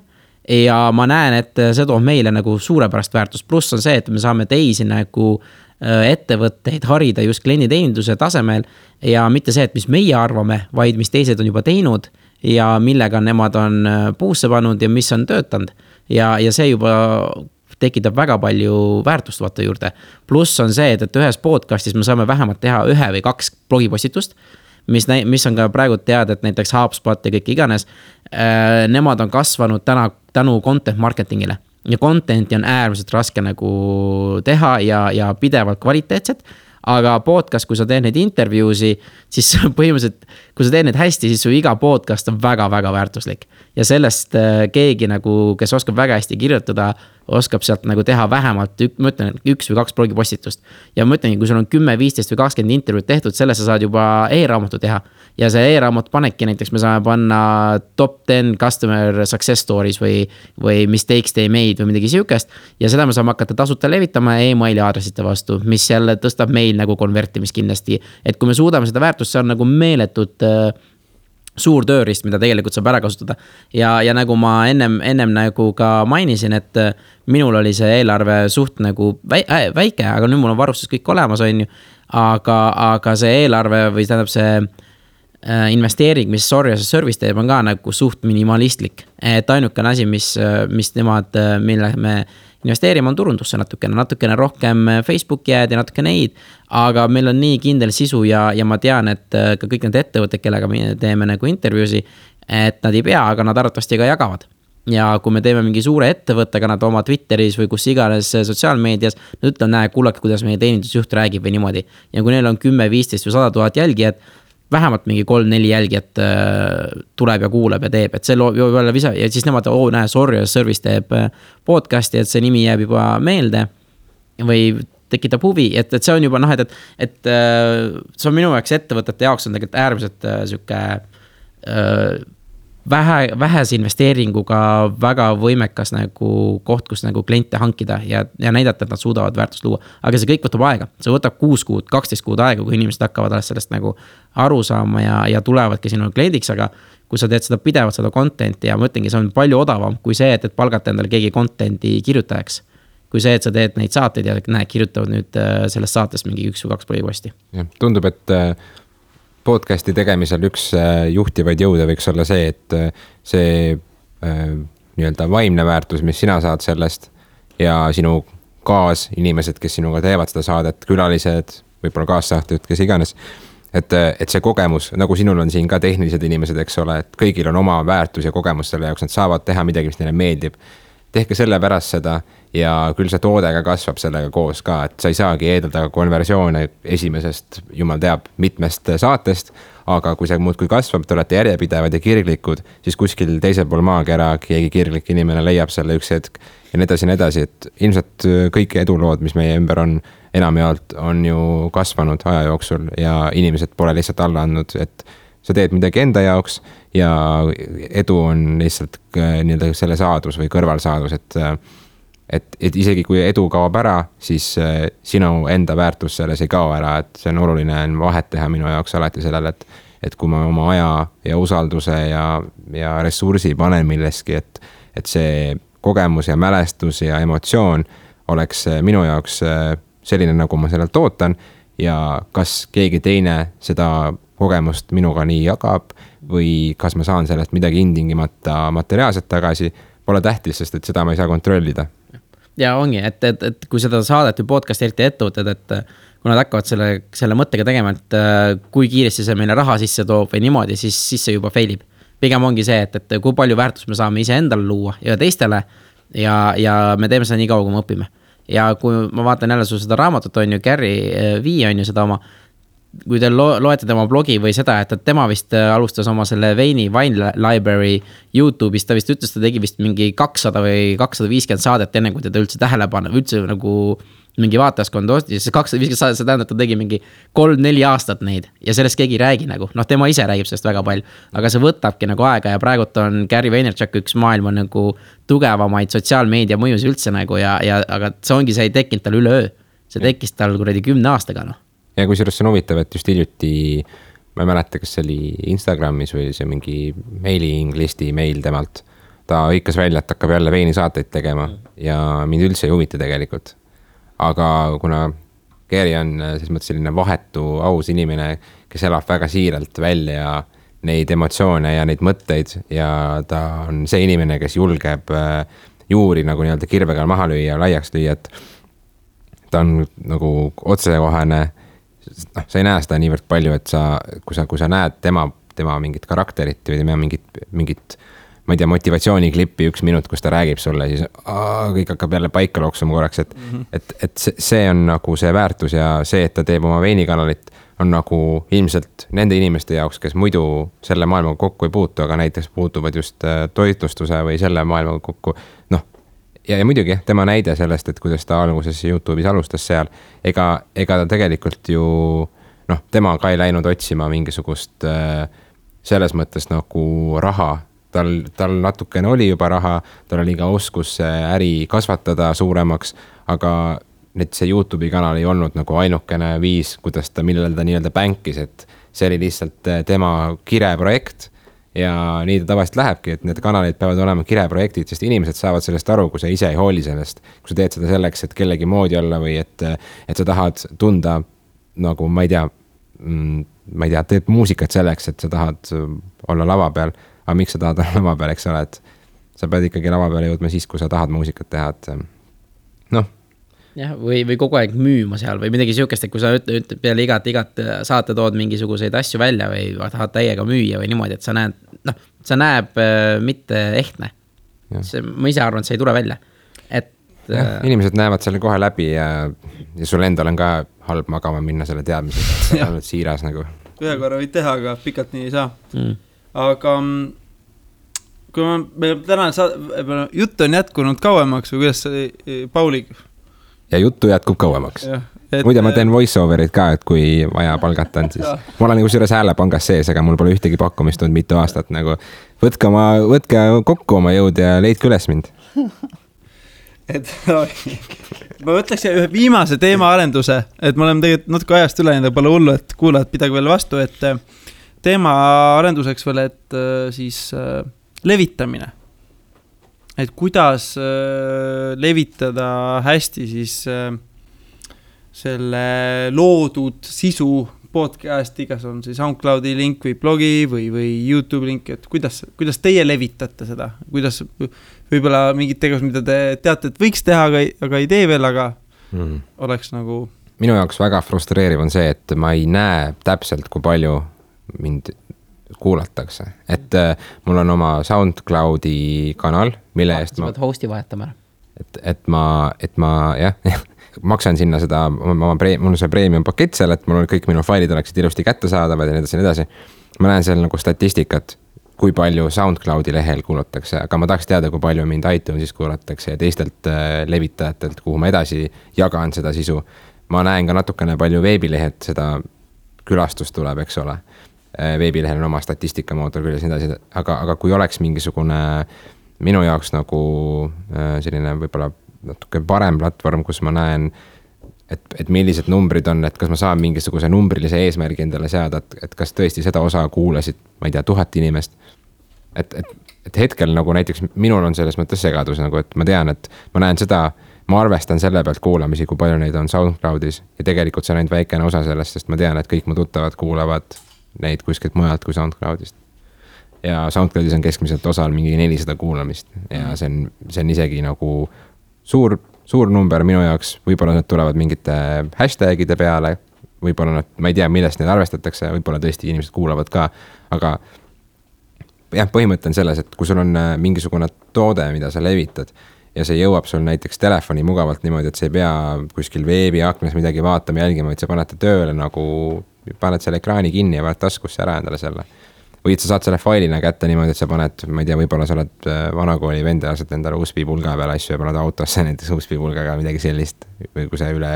ja ma näen, et see toob meile nagu suurepärast väärtust. Pluss on see, et me saame teisi nagu ettevõtteid harida just klienditeeninduse tasemel ja mitte see, et mis meie arvame, vaid mis teised on juba teinud ja millega nemad on puusse pannud ja mis on töötanud. Ja see juba tekitab väga palju väärtust vaata juurde. Pluss on see, et ühes podcastis me saame vähemalt teha 1 või 2 blogipostitust, mis on ka praegu teada, et näiteks HubSpot ja kõik iganes, nemad on kasvanud tänu content marketingile. Ja contenti on äärmiselt raske nagu teha ja pidevalt kvaliteetset, aga podcast, kui sa teed neid intervjuusi, siis põhimõtteliselt, kui sa teed neid hästi, siis su iga podcast on väga-väga väärtuslik. Ja sellest keegi nagu, kes oskab väga hästi kirjutada, oskab sealt nagu teha vähemalt, ma ütlen, 1 või 2 blogipostitust. Ja ma ütlen, kui sul on 10, 15 või 20 intervjuud tehtud, selles sa saad juba e-raamatu teha. Ja see e-raamat panebki näiteks, me saame panna top 10 customer success stories või mistakes they made või midagi siukest. Ja seda me saame hakata tasuta levitama e-maili aadressite vastu, mis jälle tõstab meil nagu konvertimist kindlasti. Et kui me suudame seda väärtust, see on nagu meeletut suur tööriist, mida tegelikult saab ära kasutada. Ja nagu ma ennem nagu ka mainisin, et minul oli see eelarve suht nagu väike, aga nüüd mul on varustus kõik olemas, on ju. Aga see eelarve või tähendab see investeering, mis Sorry as a Service teeb, on ka nagu suht minimalistlik. Et ainukene asi, mis nemad, mille me investeerime, on turundusse natukene rohkem Facebooki jääd ja natuke neid, aga meil on nii kindel sisu ja ma tean, et ka kõik need ettevõtted, kellega me teeme nagu intervjuusi, et nad ei pea, aga nad arvatavasti ka jagavad. ja kui me teeme mingi suure ettevõttega nad oma Twitteris või kus iganes sotsiaalmeedias, nad ütlevad, näe, kuulake, kuidas meie teenindusjuht räägib või niimoodi. Ja kui neil on 10, 15 või 100 000 jälgijat, vähemalt mingi 3-4 jälgijat tuleb ja kuuleb ja teeb, et see loob juba jälle visa ja siis nemad, näe, Sorry Service teeb podcasti, et see nimi jääb juba meelde või tekitab huvi, et see on juba et see on minu jaoks ettevõtete jaoks on tegelikult äärmiselt süke vähese investeeringuga väga võimekas nagu koht, kus nagu kliente hankida ja näidata, et nad suudavad väärtust luua. Aga see kõik võtab aega, see võtab 6 kuud, 12 kuud aega, kui inimesed hakkavad sellest nagu aru saama ja tulevadki sinu kliendiks, aga kui sa teed seda pidevalt, seda contenti ja ma ütlengi, see on palju odavam kui see, et palgata endale keegi contenti kirjutajaks. Kui see, et sa teed neid saateid ja näed, kirjutavad nüüd sellest saatest mingi 1 või 2 põhiposti. Tundub, et podcasti tegemisel üks juhtivaid jõude võiks olla see, et see nii-öelda vaimne väärtus, mis sina saad sellest ja sinu kaasinimesed, kes sinuga teevad seda saadet, külalised, võib-olla kaassaateid, kes iganes, et see kogemus, nagu sinul on siin ka tehnilised inimesed, eks ole, et kõigil on oma väärtus ja kogemus selle jaoks, nad saavad teha midagi, mis neile meeldib. Tehke selle pärast seda ja küll see toode ka kasvab sellega koos ka, et sa ei saagi eeldada konversioone esimesest, jumal teab, mitmest saatest, aga kui see muudkui kasvab, te olete järjepidevad ja kirglikud, siis kuskil teisel pool maakera keegi kirglik inimene leiab selle üks hetk ja nii edasi, et ilmselt kõik edulood, mis meie ümber on, enamjaolt on ju kasvanud aja jooksul ja inimesed pole lihtsalt alla andnud, et sa teed midagi enda jaoks ja edu on lihtsalt nii-öelda selle saadus või kõrvalsaadus, et isegi kui edu kaob ära, siis sinu enda väärtus selles ei kao ära, et see on oluline vahet teha minu jaoks alati sellele, et kui ma oma aja ja usalduse ja ressursi panen milleski, et see kogemus ja mälestus ja emotsioon oleks minu jaoks selline, nagu ma sellelt ootan ja kas keegi teine seda kogemust minuga nii jagab või kas ma saan sellest midagi intingimata materiaalselt tagasi, pole tähtis, sest et seda ma ei saa kontrollida. Ja ongi, et kui seda saadet või podcast eriti ettevõtted, et kui nad hakkavad selle mõttega tegema, et kui kiiresti see meile raha sisse toob või niimoodi, siis see juba failib. Pigem ongi see, et kui palju väärtust me saame ise endale luua ja teistele ja me teeme seda nii kaua, kui me õpime. Ja kui ma vaatan jälle sul seda raamatut on ju, Gary Vee on ju seda oma, kui te loete tema blogi või seda, et tema vist alustas oma selle Wine Library YouTube'is, ta vist ütles, ta tegi vist mingi 200 või 250 saadet enne, kui teda üldse tähelepanu, üldse nagu mingi vaatajaskond ostis, see 250 saadet, see tähendab, ta tegi mingi 3-4 aastat neid ja sellest keegi ei räägi nagu, tema ise räägib sellest väga palju, aga see võtabki nagu aega ja praegult on Gary Vaynerchuk üks maailma nagu tugevamaid sotsiaalmeedia mõjus üldse nagu aga see ongi, see ei tekkinud tal üleöö, see tekkis tal kuradi 10 aastaga Ja kui sellest on huvitav, et just hiljuti, ma ei mäleta, kas see oli Instagramis või see mingi mailing listi meil temalt, ta hõikas välja, et hakkab jälle veini saateid tegema ja mind üldse ei huvita tegelikult. Aga kuna Gary on selles mõttes selline vahetu, aus inimene, kes elab väga siiralt välja neid emotsioone ja neid mõtteid ja ta on see inimene, kes julgeb juuri nagu nii-öelda kirvega maha lüüa ja laiaks lüüa, et ta on nagu otsekohane. Sa ei näe seda niivõrd palju, et kui sa näed tema mingit karakterit või tema mingit, ma ei tea, motivatsiooniklippi 1 minut, kus ta räägib sulle, siis kõik hakkab jälle paika looksuma korraks, et see on nagu see väärtus ja see, et ta teeb oma veinikanalit, on nagu ilmselt nende inimeste jaoks, kes muidu selle maailmaga kokku ei puutu, aga näiteks puutuvad just toitlustuse või selle maailmaga kokku, Ja muidugi, tema näide sellest, et kuidas ta alguses YouTube'is alustas seal, ega ta tegelikult ju, tema ka ei läinud otsima mingisugust selles mõttes nagu raha. Tal natukene oli juba raha, tal oli ka oskus äri kasvatada suuremaks, aga see YouTube'i kanal ei olnud nagu ainukene viis, kuidas millele ta nii-öelda bänkis, et see oli lihtsalt tema kireprojekt. Ja nii ta tavaliselt lähebki, et need kanalid peavad olema kireprojektid, sest inimesed saavad sellest aru, kui sa ise ei hooli sellest. Kui sa teed seda selleks, et kellegi moodi olla või et sa tahad tunda nagu, ma ei tea, teed muusikat selleks, et sa tahad olla lava peal. Aga miks sa tahad olla lava peal, eks ole, et sa pead ikkagi lava peale jõudma siis, kui sa tahad muusikat teha, et Jah, või kogu aeg müüma seal või midagi siukest, et kui sa ütled peale igat saate tood mingisuguseid asju välja või tahad täiega müüa või niimoodi, et sa näeb mitte ehtne. ma ise arvan, et see ei tule välja, et inimesed näevad selle kohe läbi ja sul endal on ka halb magama minna selle teadmisega, et oled siiras nagu. Ühe korra võid teha, aga pikalt nii ei saa. Aga kui meil täna jutt on jätkunud kauemaks või kuidas Pauli? Ja juttu jätkub kauemaks. Muide, ma teen voice-overit ka, et kui vaja palgata on, siis ma olen nagu selles häälepangas sees, aga mul pole ühtegi pakkumist olnud mitu aastat nagu. Võtke kokku oma jõud ja leidke üles mind. Et ma võtleks ühe viimase teema arenduse, et me oleme tegelikult natuke ajast üle, nii pole hullu, et kuulajad pidage veel vastu, et teema arenduseks veel, et siis levitamine. Et kuidas levitada hästi siis selle loodud sisu podcasti, kas on siis SoundCloudi link või blogi või YouTube link, et kuidas teie levitate seda, kuidas võib-olla mingid tegevus, mida te teate, et võiks teha, aga ei tee veel, aga oleks nagu... Minu jaoks väga frustreeriv on see, et ma ei näe täpselt, kui palju mind kuulatakse. Et mul on oma SoundCloudi kanal, mille eest ma... hosti vahetama. Et ma jah, maksan sinna seda, mul on see premium pakett seal, et mul on kõik minu failid oleksid ilusti kättesaadavad ja nii edasi. Ma näen seal nagu statistikat, kui palju SoundCloudi lehel kuulatakse, aga ma tahaks teada, kui palju mind iTunesis kuulatakse ja teistelt levitajatelt, kuhu ma edasi jagan seda sisu. Ma näen ka natukene palju veebilehed, seda külastust tuleb, eks ole. Veebilehel on oma statistikamootor küljes nii edasi, aga kui oleks mingisugune minu jaoks nagu selline võib-olla natuke parem platvorm, kus ma näen, et millised numbrid on, et kas ma saan mingisuguse numbrilise eesmärgi endale seada, et kas tõesti seda osa kuulasid, ma ei tea, 1000 inimest. Et hetkel nagu näiteks minul on selles mõttes segadus, nagu, et ma tean, et ma näen seda, ma arvestan selle pealt kuulamisi, kui palju neid on SoundCloudis ja tegelikult see on ainult väikene osa sellest, sest ma tean, et kõik mu tuttavad kuulavad neid kuskilt mujalt kui SoundCloudist. Ja SoundCloudis on keskmiselt osal mingi 400 kuulamist ja see on isegi nagu suur number minu jaoks, võib-olla need tulevad mingite hashtagide peale, võib-olla nad, ma ei tea, millest need arvestatakse, võib-olla tõesti inimesed kuulavad ka, aga jah, põhimõte on selles, et kui sul on mingisugune toode, mida sa levitad ja see jõuab sul näiteks telefoni mugavalt niimoodi, et sa ei pea kuskil veebiaknas midagi vaatama, jälgima, et sa paned tööle nagu, paned selle ekraani kinni ja paned taskusse ära endale selle. Või et sa saad selle failina kätte niimoodi, et sa paned, ma ei tea, võib-olla sa oled vanakooli vend ja lased endale USB-pulga peale asju ja paned autosse näiteks USB-pulgaga midagi sellist, või kui sa üle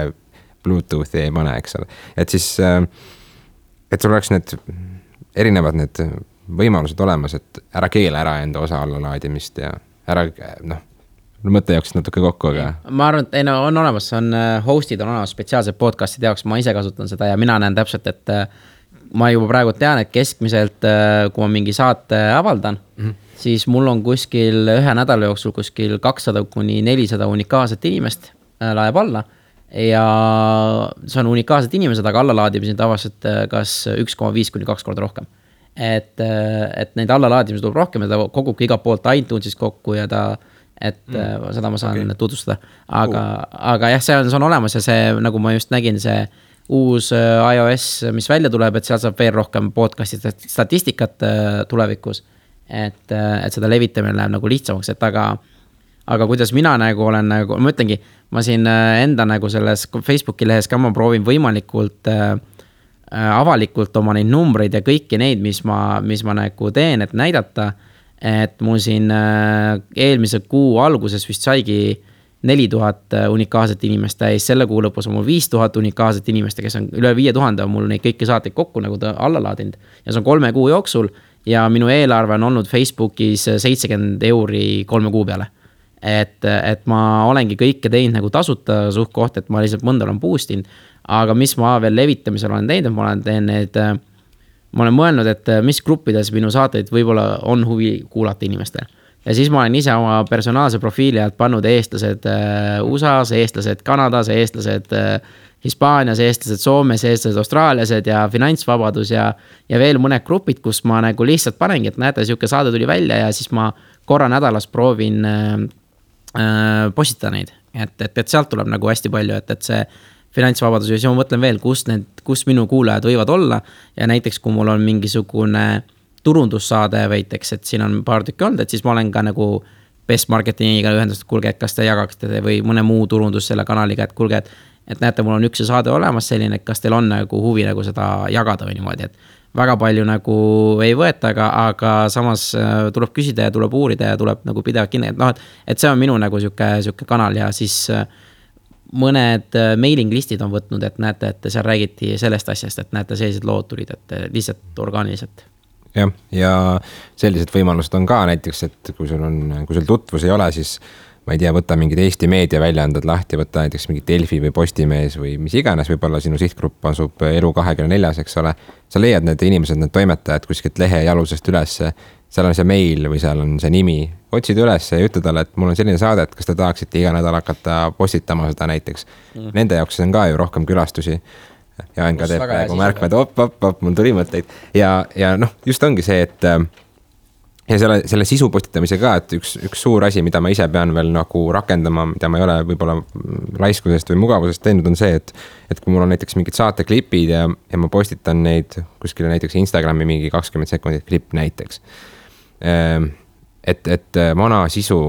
Bluetoothi ei pane, eks ole. Et siis, et sul oleks need erinevad need võimalused olemas, et ära keela ära enda osa allalaadimist ja ära, mõtte jaoks natuke kokku, aga... Ma arvan, et on olemas, hostid on olemas spetsiaalsed podcastide jaoks, ma ise kasutan seda ja mina näen täpselt, et ma juba praegu tean, et keskmiselt, kui ma mingi saate avaldan, siis mul on kuskil ühe nädala jooksul kuskil 200-400 unikaalset inimest laeb alla ja see on unikaalsed inimesed, aga allalaadimised tavaliselt kas 1,5-2 korda rohkem. Et neid allalaadimised tuleb rohkem ja ta kogubki iga poolt iTunesis kokku ja seda ma saan tutvustada. Aga jah, see on olemas ja see, nagu ma just nägin, see uus iOS, mis välja tuleb, et seal saab veel rohkem podcasti statistikat tulevikus, et seda levitamine läheb nagu lihtsamaks, et aga kuidas mina nagu olen, nagu, ma ütlengi, ma siin enda nagu selles Facebooki lehes ka ma proovin võimalikult avalikult oma neid numbreid ja kõiki neid, mis ma nagu teen, et näidata, et mul siin eelmise kuu alguses vist saigi 4000 unikaalset inimest täis, selle kuu lõpus on mul 5000 unikaalset inimest, kes on üle 5000, on mul neid kõiki saateid kokku nagu ta alla laadinud. Ja see on 3 kuu jooksul ja minu eelarve on olnud Facebookis 70 € 3 kuu peale. Et ma olengi kõike teinud nagu tasuta suht koht, et ma lihtsalt mõnda olen boost'inud, aga mis ma veel levitamisel olen teinud, ma olen mõelnud, et mis gruppides minu saateid võib-olla on huvi kuulata inimestel. Ja siis ma olen ise oma personaalse profiili alt pannud eestlased USA-s, eestlased Kanadas, eestlased Hispaanias, eestlased Soomes, eestlased Austraaliased ja finantsvabadus ja veel mõned grupid, kus ma nagu lihtsalt panengi, et näete, siuke saade tuli välja ja siis ma korra nädalas proovin postitada neid. Et sealt tuleb nagu hästi palju, et see finantsvabadus ja siis ma mõtlen veel, kus minu kuulajad võivad olla ja näiteks kui mul on mingisugune turundussaade veiteks, et siin on paar tükki olnud, et siis ma olen ka nagu best marketingiga ühendust, kuulge, et kas te jagaksite või mõne muu turundus selle kanaliga, et kuulge, et näete, mul on üks saade olemas selline, et kas teil on nagu huvi nagu seda jagada või niimoodi, et väga palju nagu ei võeta, aga samas tuleb küsida ja tuleb uurida ja tuleb nagu pidevalt kinni, et noh, et see on minu nagu siuke kanal ja siis mõned mailing listid on võtnud, et näete, et seal räägiti sellest asjast, et näete, sellised lood tulid, et lihtsalt orgaaniliselt. Jah, ja sellised võimalused on ka näiteks, et kui sul tutvus ei ole, siis ma ei tea, võtta mingid Eesti meediaväljaanded lahti, võtta näiteks mingi Delfi või Postimees või mis iganes, võib-olla sinu sihtgrupp asub Elu24, eks ole. Sa leiad need inimesed, need toimetajad kuskilt lehe jalusest üles, seal on see meil või seal on see nimi, otsid üles ja ütle talle, et mul on selline saade, et kas te tahaksite iga nädal hakata postitama seda näiteks. Nende jaoks on ka ju rohkem külastusi. Ja Enka teeb praegu märkmed, mul tuli mõtteid. Ja noh, just ongi see, et ja selle sisu postitamise ka, et üks suur asi, mida ma ise pean veel nagu rakendama, mida ma ei ole võib-olla laiskusest või mugavusest teinud, on see, et kui mul on näiteks mingid saateklipid ja ma postitan neid kuskile näiteks Instagrami mingi 20 sekundit klipp näiteks. Et vana sisu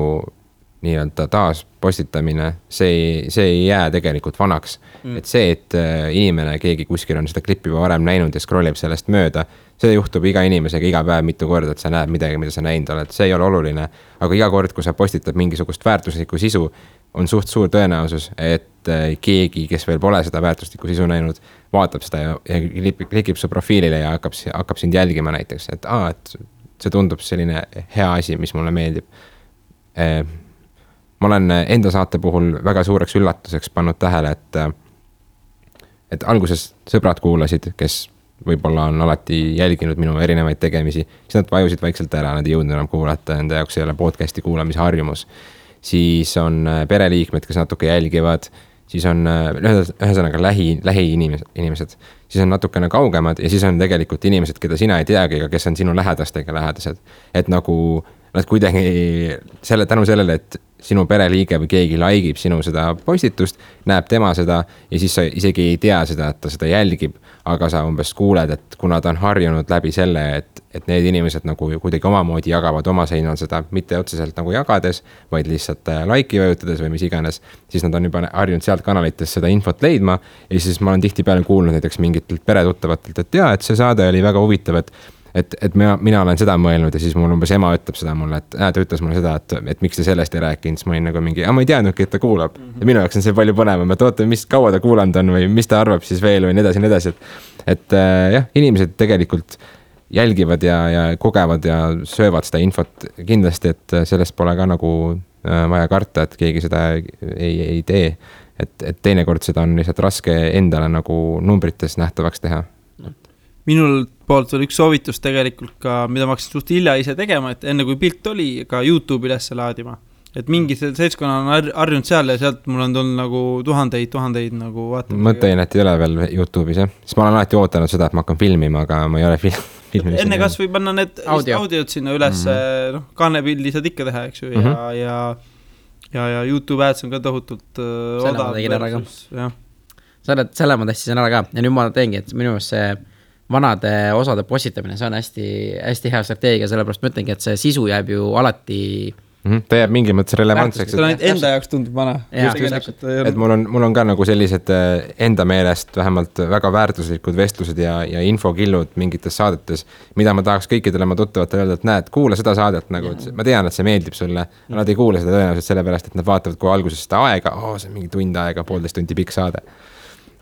nii-öelda taas postitamine, see ei jää tegelikult vanaks. Et see, et inimene, keegi kuskil on seda klippi varem näinud ja scrollib sellest mööda, see juhtub iga inimesega iga päev mitu korda, et sa näed midagi, mida sa näinud oled. See ei ole oluline, aga iga kord, kui sa postitad mingisugust väärtuslikku sisu, on suht suur tõenäosus, et keegi, kes veel pole seda väärtuslikku sisu näinud, vaatab seda ja klikib su profiilile ja hakkab sind jälgima näiteks, et see tundub selline hea asi, mis mulle meeldib. Ma olen enda saate puhul väga suureks üllatuseks pannud tähele, et alguses sõbrad kuulasid, kes võib-olla on alati jälginud minu erinevaid tegemisi, siis nad vajusid vaikselt ära, nad ei jõudnud enam kuulata, enda jaoks ei ole podcasti kuulamise harjumus. Siis on pereliikmed, kes natuke jälgivad, siis on ühesõnaga lähi inimesed, siis on natukene kaugemad ja siis on tegelikult inimesed, keda sina ei teagi, aga kes on sinu lähedastega lähedased. Et nagu nad kuidagi tänu sellele, et sinu pereliige või keegi laikib sinu seda postitust, näeb tema seda ja siis sa isegi ei tea seda, et ta seda jälgib, aga sa umbes kuuled, et kuna ta on harjunud läbi selle, et need inimesed nagu kuidagi omamoodi jagavad oma seinal seda, mitte otseselt nagu jagades, vaid lihtsalt like'i vajutades või mis iganes, siis nad on juba harjunud sealt kanalites seda infot leidma ja siis ma olen tihtipeale kuulnud näiteks mingitelt peretuttavatelt, et jaa, et see saade oli väga huvitav, et mina olen seda mõelnud ja siis mul umbes ema ütleb seda mulle, et ta ütles mulle seda, et miks te sellest ei rääkinud, siis ma olin nagu mingi, ma ei teadnudki, et ta kuulab. Ja minu jaoks on see palju põnevam, et oota, mis kaua ta kuulanud on või mis ta arvab siis veel või nii edasi. Et jah, inimesed tegelikult jälgivad ja kogevad ja söövad seda infot kindlasti, et sellest pole ka nagu vaja karta, et keegi seda ei tee. Et teinekord seda on lihtsalt raske endale nagu numbrites nähtavaks teha. Minul poolt oli üks soovitus tegelikult ka, mida ma hakkasin suht hilja ise tegema, et enne kui pilt oli, ka YouTube üles laadima. Et mingi seltskonna on harjunud seal ja sealt mul on tulnud nagu tuhandeid nagu vaatama. Mõttein, et ei ole veel YouTube'is, jah? Siis ma olen alati ootanud seda, et ma hakkan filmima, aga ma ei ole filminud. Enne kas või panna need audiod sinna üles, kaanepildi saad ikka teha, eks ju, ja YouTube ads on ka tohutult odav. Selle ma testisin ära ka ja nüüd ma teengi, et minu meelest see vanade osade postitamine, see on hästi hea strateegia, sellepärast ma ütlengi, et see sisu jääb ju alati ta jääb mingi mõttes relevantseks. Ta enda jaoks tundub vana. Et mul on ka nagu sellised enda meelest vähemalt väga väärtuslikud vestlused ja infokillud mingites saadetes, mida ma tahaks kõikidele ma tuttavatele öelda, et näed, kuula seda saadet nagu, ma tean, et see meeldib sulle, nad ei kuule seda tõenäoliselt sellepärast, et nad vaatavad kui alguses seda aega, see on mingi tund aega, 1,5 tundi pikk saade.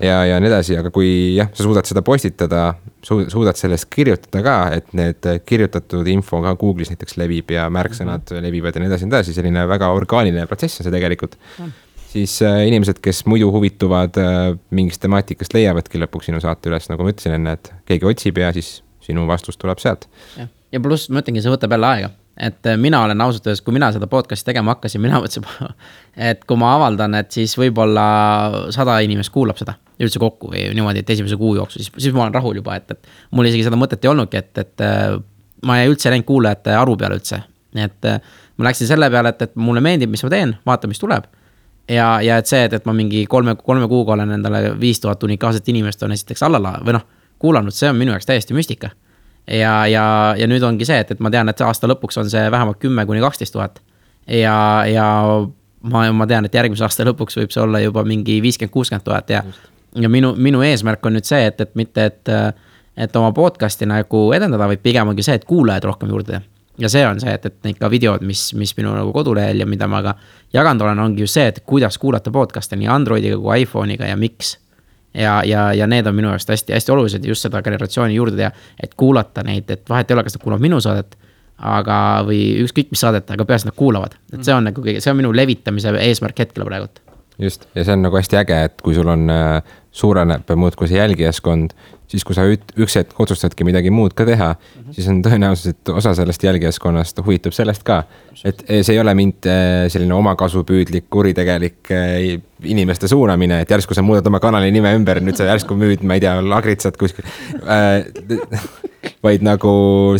Ja nii edasi, aga kui sa suudad seda postitada, suudad sellest kirjutada ka, et need kirjutatud info ka Google'is näiteks levib ja märksõnad levivad ja nii edasi, selline väga orgaaniline protsess on see tegelikult. Siis inimesed, kes muidu huvituvad mingist temaatikast leiavadki lõpuks sinu saate üles, nagu ma ütlesin enne, et keegi otsib ja siis sinu vastus tuleb sealt. Ja pluss ma ütlengi, see võtab jälle aega. Et mina olen ausalt öeldes, kui mina seda podcasti tegema hakkasin, mina mõtlesin, et kui ma avaldan, et siis võib-olla 100 inimest kuulab seda üldse kokku või niimoodi, et esimese kuu jooksu, siis ma olen rahul juba, et mul isegi seda mõtet ei olnudki, et ma ei üldse näinud kuulajate aru peale üldse. Et ma läksin selle peale, et mulle meeldib, mis ma teen, vaata, mis tuleb. Ja et see, et ma mingi 3 kuuga olen endale 5000 unikaalset inimest on esiteks kuulanud, see on minu jaoks täiesti müstika. Ja nüüd ongi see, et ma tean, et aasta lõpuks on see vähemalt 10 kuni 12 000 ja ma tean, et järgmise aasta lõpuks võib see olla juba mingi 50-60 000 ja minu eesmärk on nüüd see, et mitte, et oma podcasti nagu edendada, vaid pigem ongi see, et kuulajaid rohkem juurde teha. Ja see on see, et neid ka videod, mis minu nagu kodulehel ja mida ma ka jaganud olen, ongi just see, et kuidas kuulata podcast'e nii Androidiga kui iPhone'iga ja miks. Ja need on minu jaoks hästi olulised just seda generatsiooni juurde teha, et kuulata neid, et vahet ei ole, kas nad kuulavad minu saadet, aga või ükskõik mis saadet, aga peas nad kuulavad. Et see on nagu see on minu levitamise eesmärk hetkel praegult. Just, ja see on nagu hästi äge, et kui sul on suureneb muudkui see jälgijaskond, siis kui sa üks hetk otsustadki midagi muud ka teha, siis on tõenäoliselt, et osa sellest jälgijaskonnast huvitub sellest ka. Et see ei ole mind selline omakasupüüdlik, kuritegelik inimeste suunamine, et järsku sa muudad oma kanali nime ümber, nüüd sa järsku müüd, ma ei tea, lagritsad kuskil. Vaid nagu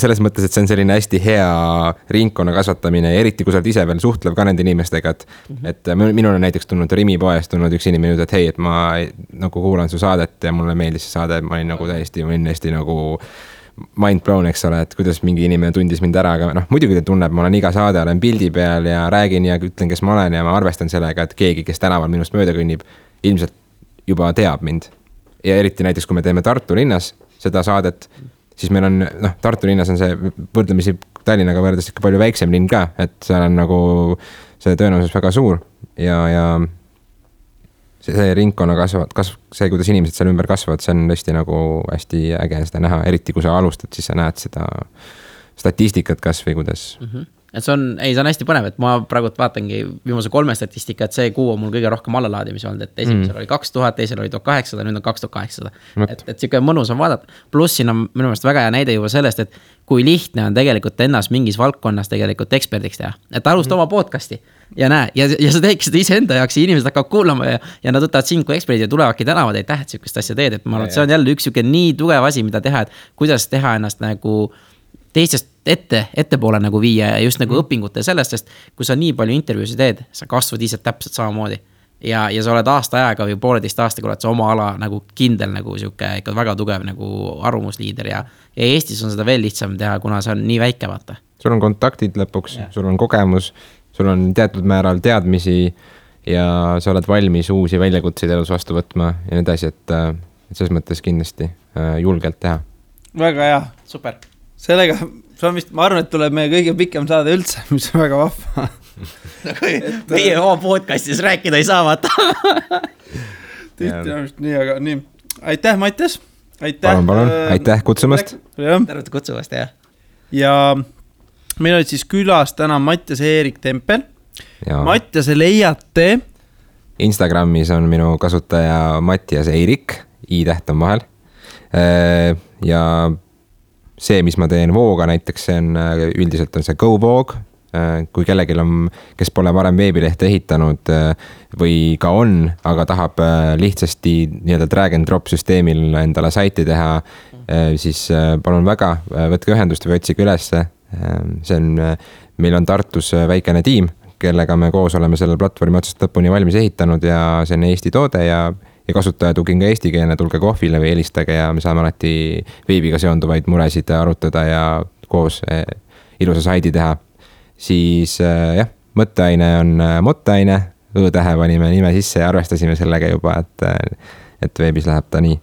selles mõttes, et see on selline hästi hea ringkonna kasvatamine, eriti kui sa oled ise veel suhtlev ka nende inimestega, et minul on näiteks tulnud Rimi poest tulnud üks inimene, et hei, et ma nagu kuulan su saadet ja mulle meeldis see saade, ma olin nagu täiesti nagu mind blown, eks ole, et kuidas mingi inimene tundis mind ära, aga muidugi ta tunneb, ma olen iga saade, olen pildi peal ja räägin ja ütlen, kes ma olen ja ma arvestan sellega, et keegi, kes tänaval minust mööda kõnnib, ilmselt juba teab mind. Ja eriti näiteks, kui me teeme Tartu linnas seda saadet, siis meil on, Tartu linnas on see võrdlemisi Tallinnaga võrdes ikka palju väiksem linn ka, et seal on nagu see tõenäosus väga suur ja see ringkonna see, kuidas inimesed seal ümber kasvavad, see on tõesti nagu hästi äge seda näha, eriti kui sa alustad, siis sa näed seda statistikat kas või kuidas. Et see on hästi põnev, et ma praegu vaatangi viimase 3 statistika, et see kuu on mul kõige rohkem allalaadimisi olnud, et esimesel oli 2000, teisel oli 1800, nüüd on 2800. Et siuke mõnus on vaadata. Pluss siin on minu meelest väga hea näide juba sellest, et kui lihtne on tegelikult ennast mingis valdkonnas tegelikult eksperdiks teha. Et alusta oma podcasti ja näe, ja sa teekki seda iseenda jaoks ja inimesed hakkavad kuulama ja nad võtavad sind kui eksperdid ja tulevadki tänavad, ei tähed siukest asja teed, et ma arvan, et see on jälle üks siuke nii tugev asi, mida teha, et kuidas teha ennast nagu teistest ettepoole nagu viia ja just nagu õpingute sellest, sest kui sa nii palju intervjuusid teed, sa kasvad ise täpselt samamoodi ja sa oled aasta aega või 1,5 aastaga oled sa oma ala nagu kindel nagu siuke ikka väga tugev nagu arvamusliider ja Eestis on seda veel lihtsam teha, kuna see on nii väike vaata. Sul on kontaktid lõpuks, sul on kogemus, sul on teatud määral teadmisi ja sa oled valmis uusi väljakutseid elus vastu võtma ja need asjad, et selles mõttes kindlasti julgelt teha. Väga hea. Super. Sellega, ma arvan, et tuleb meie kõige pikem saade üldse, mis on väga vahva. Meie oma podcastis rääkida ei saa vaata. Nii, aga nii. Aitäh, Mattias. Aitäh. Palun. Aitäh kutsumast. Tervete kutsumast, jah. Ja meil olid siis külas täna Mattias Eerik Tempel. Mattiase leiate. Instagramis on minu kasutaja Mattias Eerik, i-täht on vahel. Ja see, mis ma teen Vooga näiteks, see on üldiselt on see GoVoog, kui kellelgi on, kes pole varem veebilehte ehitanud või ka on, aga tahab lihtsasti nii-öelda drag and drop süsteemil endale saiti teha, siis palun väga, võtke ühendust või otsige ülesse. Meil on Tartus väikene tiim, kellega me koos oleme selle platvormi otsast lõpuni valmis ehitanud ja see on Eesti toode ja kasutajatugi on ka eestikeelne, tulge kohvile või helistage ja me saame alati veebiga seonduvaid muresid arutada ja koos ilusa saidi teha. Siis jah, mõtteaine on mottaine, õ-tähe panime nime sisse ja arvestasime sellega juba, et veebis läheb ta nii.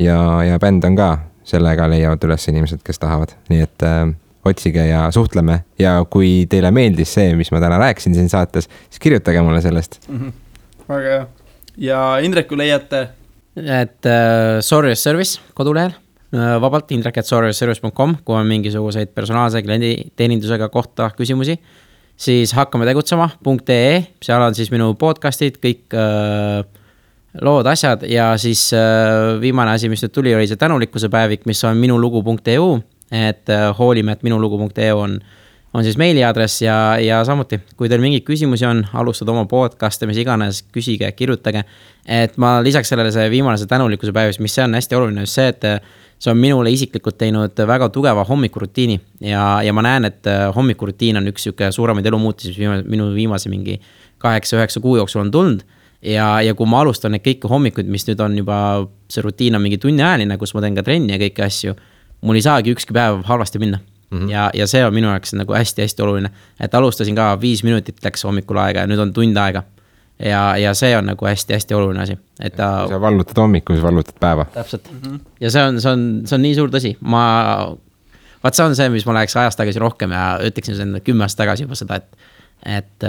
Ja bänd on ka, sellega leiavad üles inimesed, kes tahavad. Nii et otsige ja suhtleme ja kui teile meeldis see, mis ma täna rääkisin siin saates, siis kirjutage mulle sellest. Väga hea. Ja Indreku leiate? Et Sorrius Service kodulehel, vabalt indrek@sorriusservice.com, kui on mingisuguseid personaalse kliendi teenindusega kohta küsimusi, siis hakkame tegutsema.ee, seal on siis minu podcastid, kõik lood, asjad ja siis viimane asi, mis nüüd tuli, oli see tänulikkuse päevik, mis on minulugu.eu, et hoolime, et minulugu.eu on siis meiliaadress ja samuti, kui teil mingeid küsimusi on, alustada oma podcast'e, mis iganes, küsige, kirjutage. Et ma lisaks sellele see viimane see tänulikkuse päevis, mis see on hästi oluline, just see, et see on minule isiklikult teinud väga tugeva hommikurutiini ja ma näen, et hommikurutiin on üks suuremaid elumuutusi, mis minu viimase mingi 8-9 kuu jooksul on tulnud ja kui ma alustan neid kõiki hommikuid, mis nüüd on juba, see rutiin on mingi tunniajaline, kus ma teen ka trenni ja kõiki asju, mul ei saagi ükski päev halvasti minna. ja see on minu jaoks nagu hästi-hästi oluline, et alustasin ka 5 minutit läks hommikul aega ja nüüd on tund aega. Ja see on nagu hästi-hästi oluline asi, et kui sa vallutad hommiku, siis vallutad päeva. Täpselt. Ja see on nii suur tõsi. Vaat see on see, mis ma läheks ajast tagasi rohkem ja ütleksin sen 10 aastat tagasi juba seda, et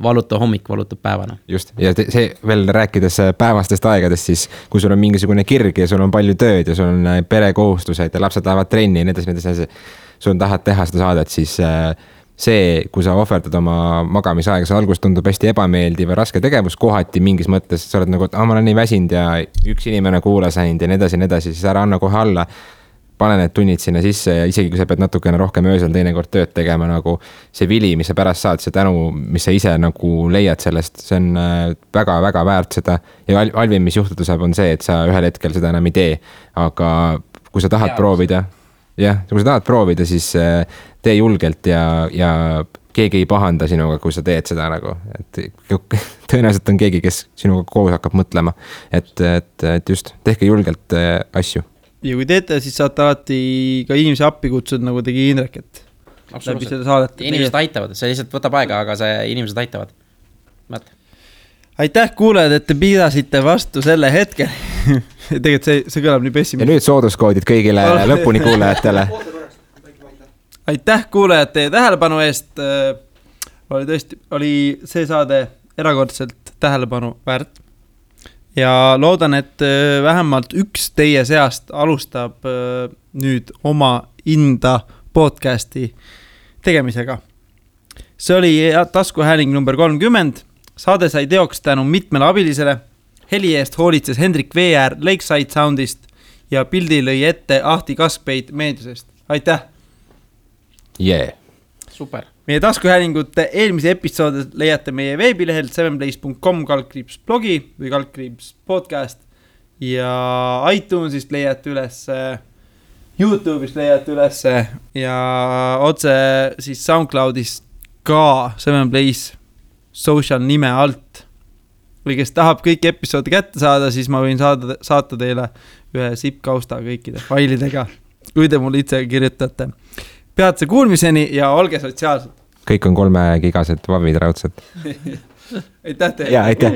valuta hommik, valutab päevana. Just, ja see veel rääkides päevastest aegadest, siis kui sul on mingisugune kirg ja sul on palju tööd ja sul on perekohustused ja lapsed lähevad trenni ja nii, sul tahad teha seda saadet, siis see, kui sa ohverdad oma magamisaega, see alguses tundub hästi ebameeldiv ja raske tegevus kohati mingis mõttes, sa oled nagu, et ma olen nii väsinud ja üks inimene kuulas ainult ja nii edasi, siis ära anna kohe alla. Pane need tunnid sinna sisse ja isegi kui sa pead natukene rohkem öösel teinekord tööd tegema, nagu see vili, mis sa pärast saad, see tänu, mis sa ise nagu leiad sellest, see on väga-väga väärt seda. Ja halvim, mis juhtuda saab, on see, et sa ühel hetkel seda enam ei tee. Aga kui sa tahad proovida, kui sa tahad proovida, siis tee julgelt ja keegi ei pahanda sinuga, kui sa teed seda nagu. Et tõenäoliselt on keegi, kes sinuga koos hakkab mõtlema. Et just, tehke julgelt asju. Ja kui teete, siis saate alati ka inimese appi kutsud, nagu tegi Indrek, et läbi selle saadet. Inimesed aitavad, see lihtsalt võtab aega, aga see inimesed aitavad. Aitäh kuulajad, et te pidasite vastu selle hetke. Tegelikult see kõlab nii pessimist. Ja nüüd sooduskoodid kõigile lõpuni kuulajatele. Aitäh kuulajad teie tähelepanu eest. Oli see saade erakordselt tähelepanu väärt. Ja loodan, et vähemalt üks teie seast alustab nüüd oma Inda podcasti tegemisega. See oli taskuhääling number 30. Saade sai teoks tänu mitmele abilisele. Heli eest hoolitses Hendrik VR Lakeside Soundist ja pildi lõi ette Ahti Kaskpeit meediusest. Aitäh! Super! Meie taskuhäälingute eelmise episoode leiate meie veebilehelt 7place.com/blogi või /podcast ja iTunesist leiate üles, YouTube'ist leiate üles ja otse siis SoundCloudist ka 7place social nime alt. Või kes tahab kõik episoodi kätte saada, siis ma võin saata teile ühe zip-kausta kõikide failidega, kui te mulle itse kirjutate. Peatse kuulmiseni ja olge sotsiaalsed. Kõik on 3 gigased vavid raudselt. Aitäh teile. Ja, aitäh.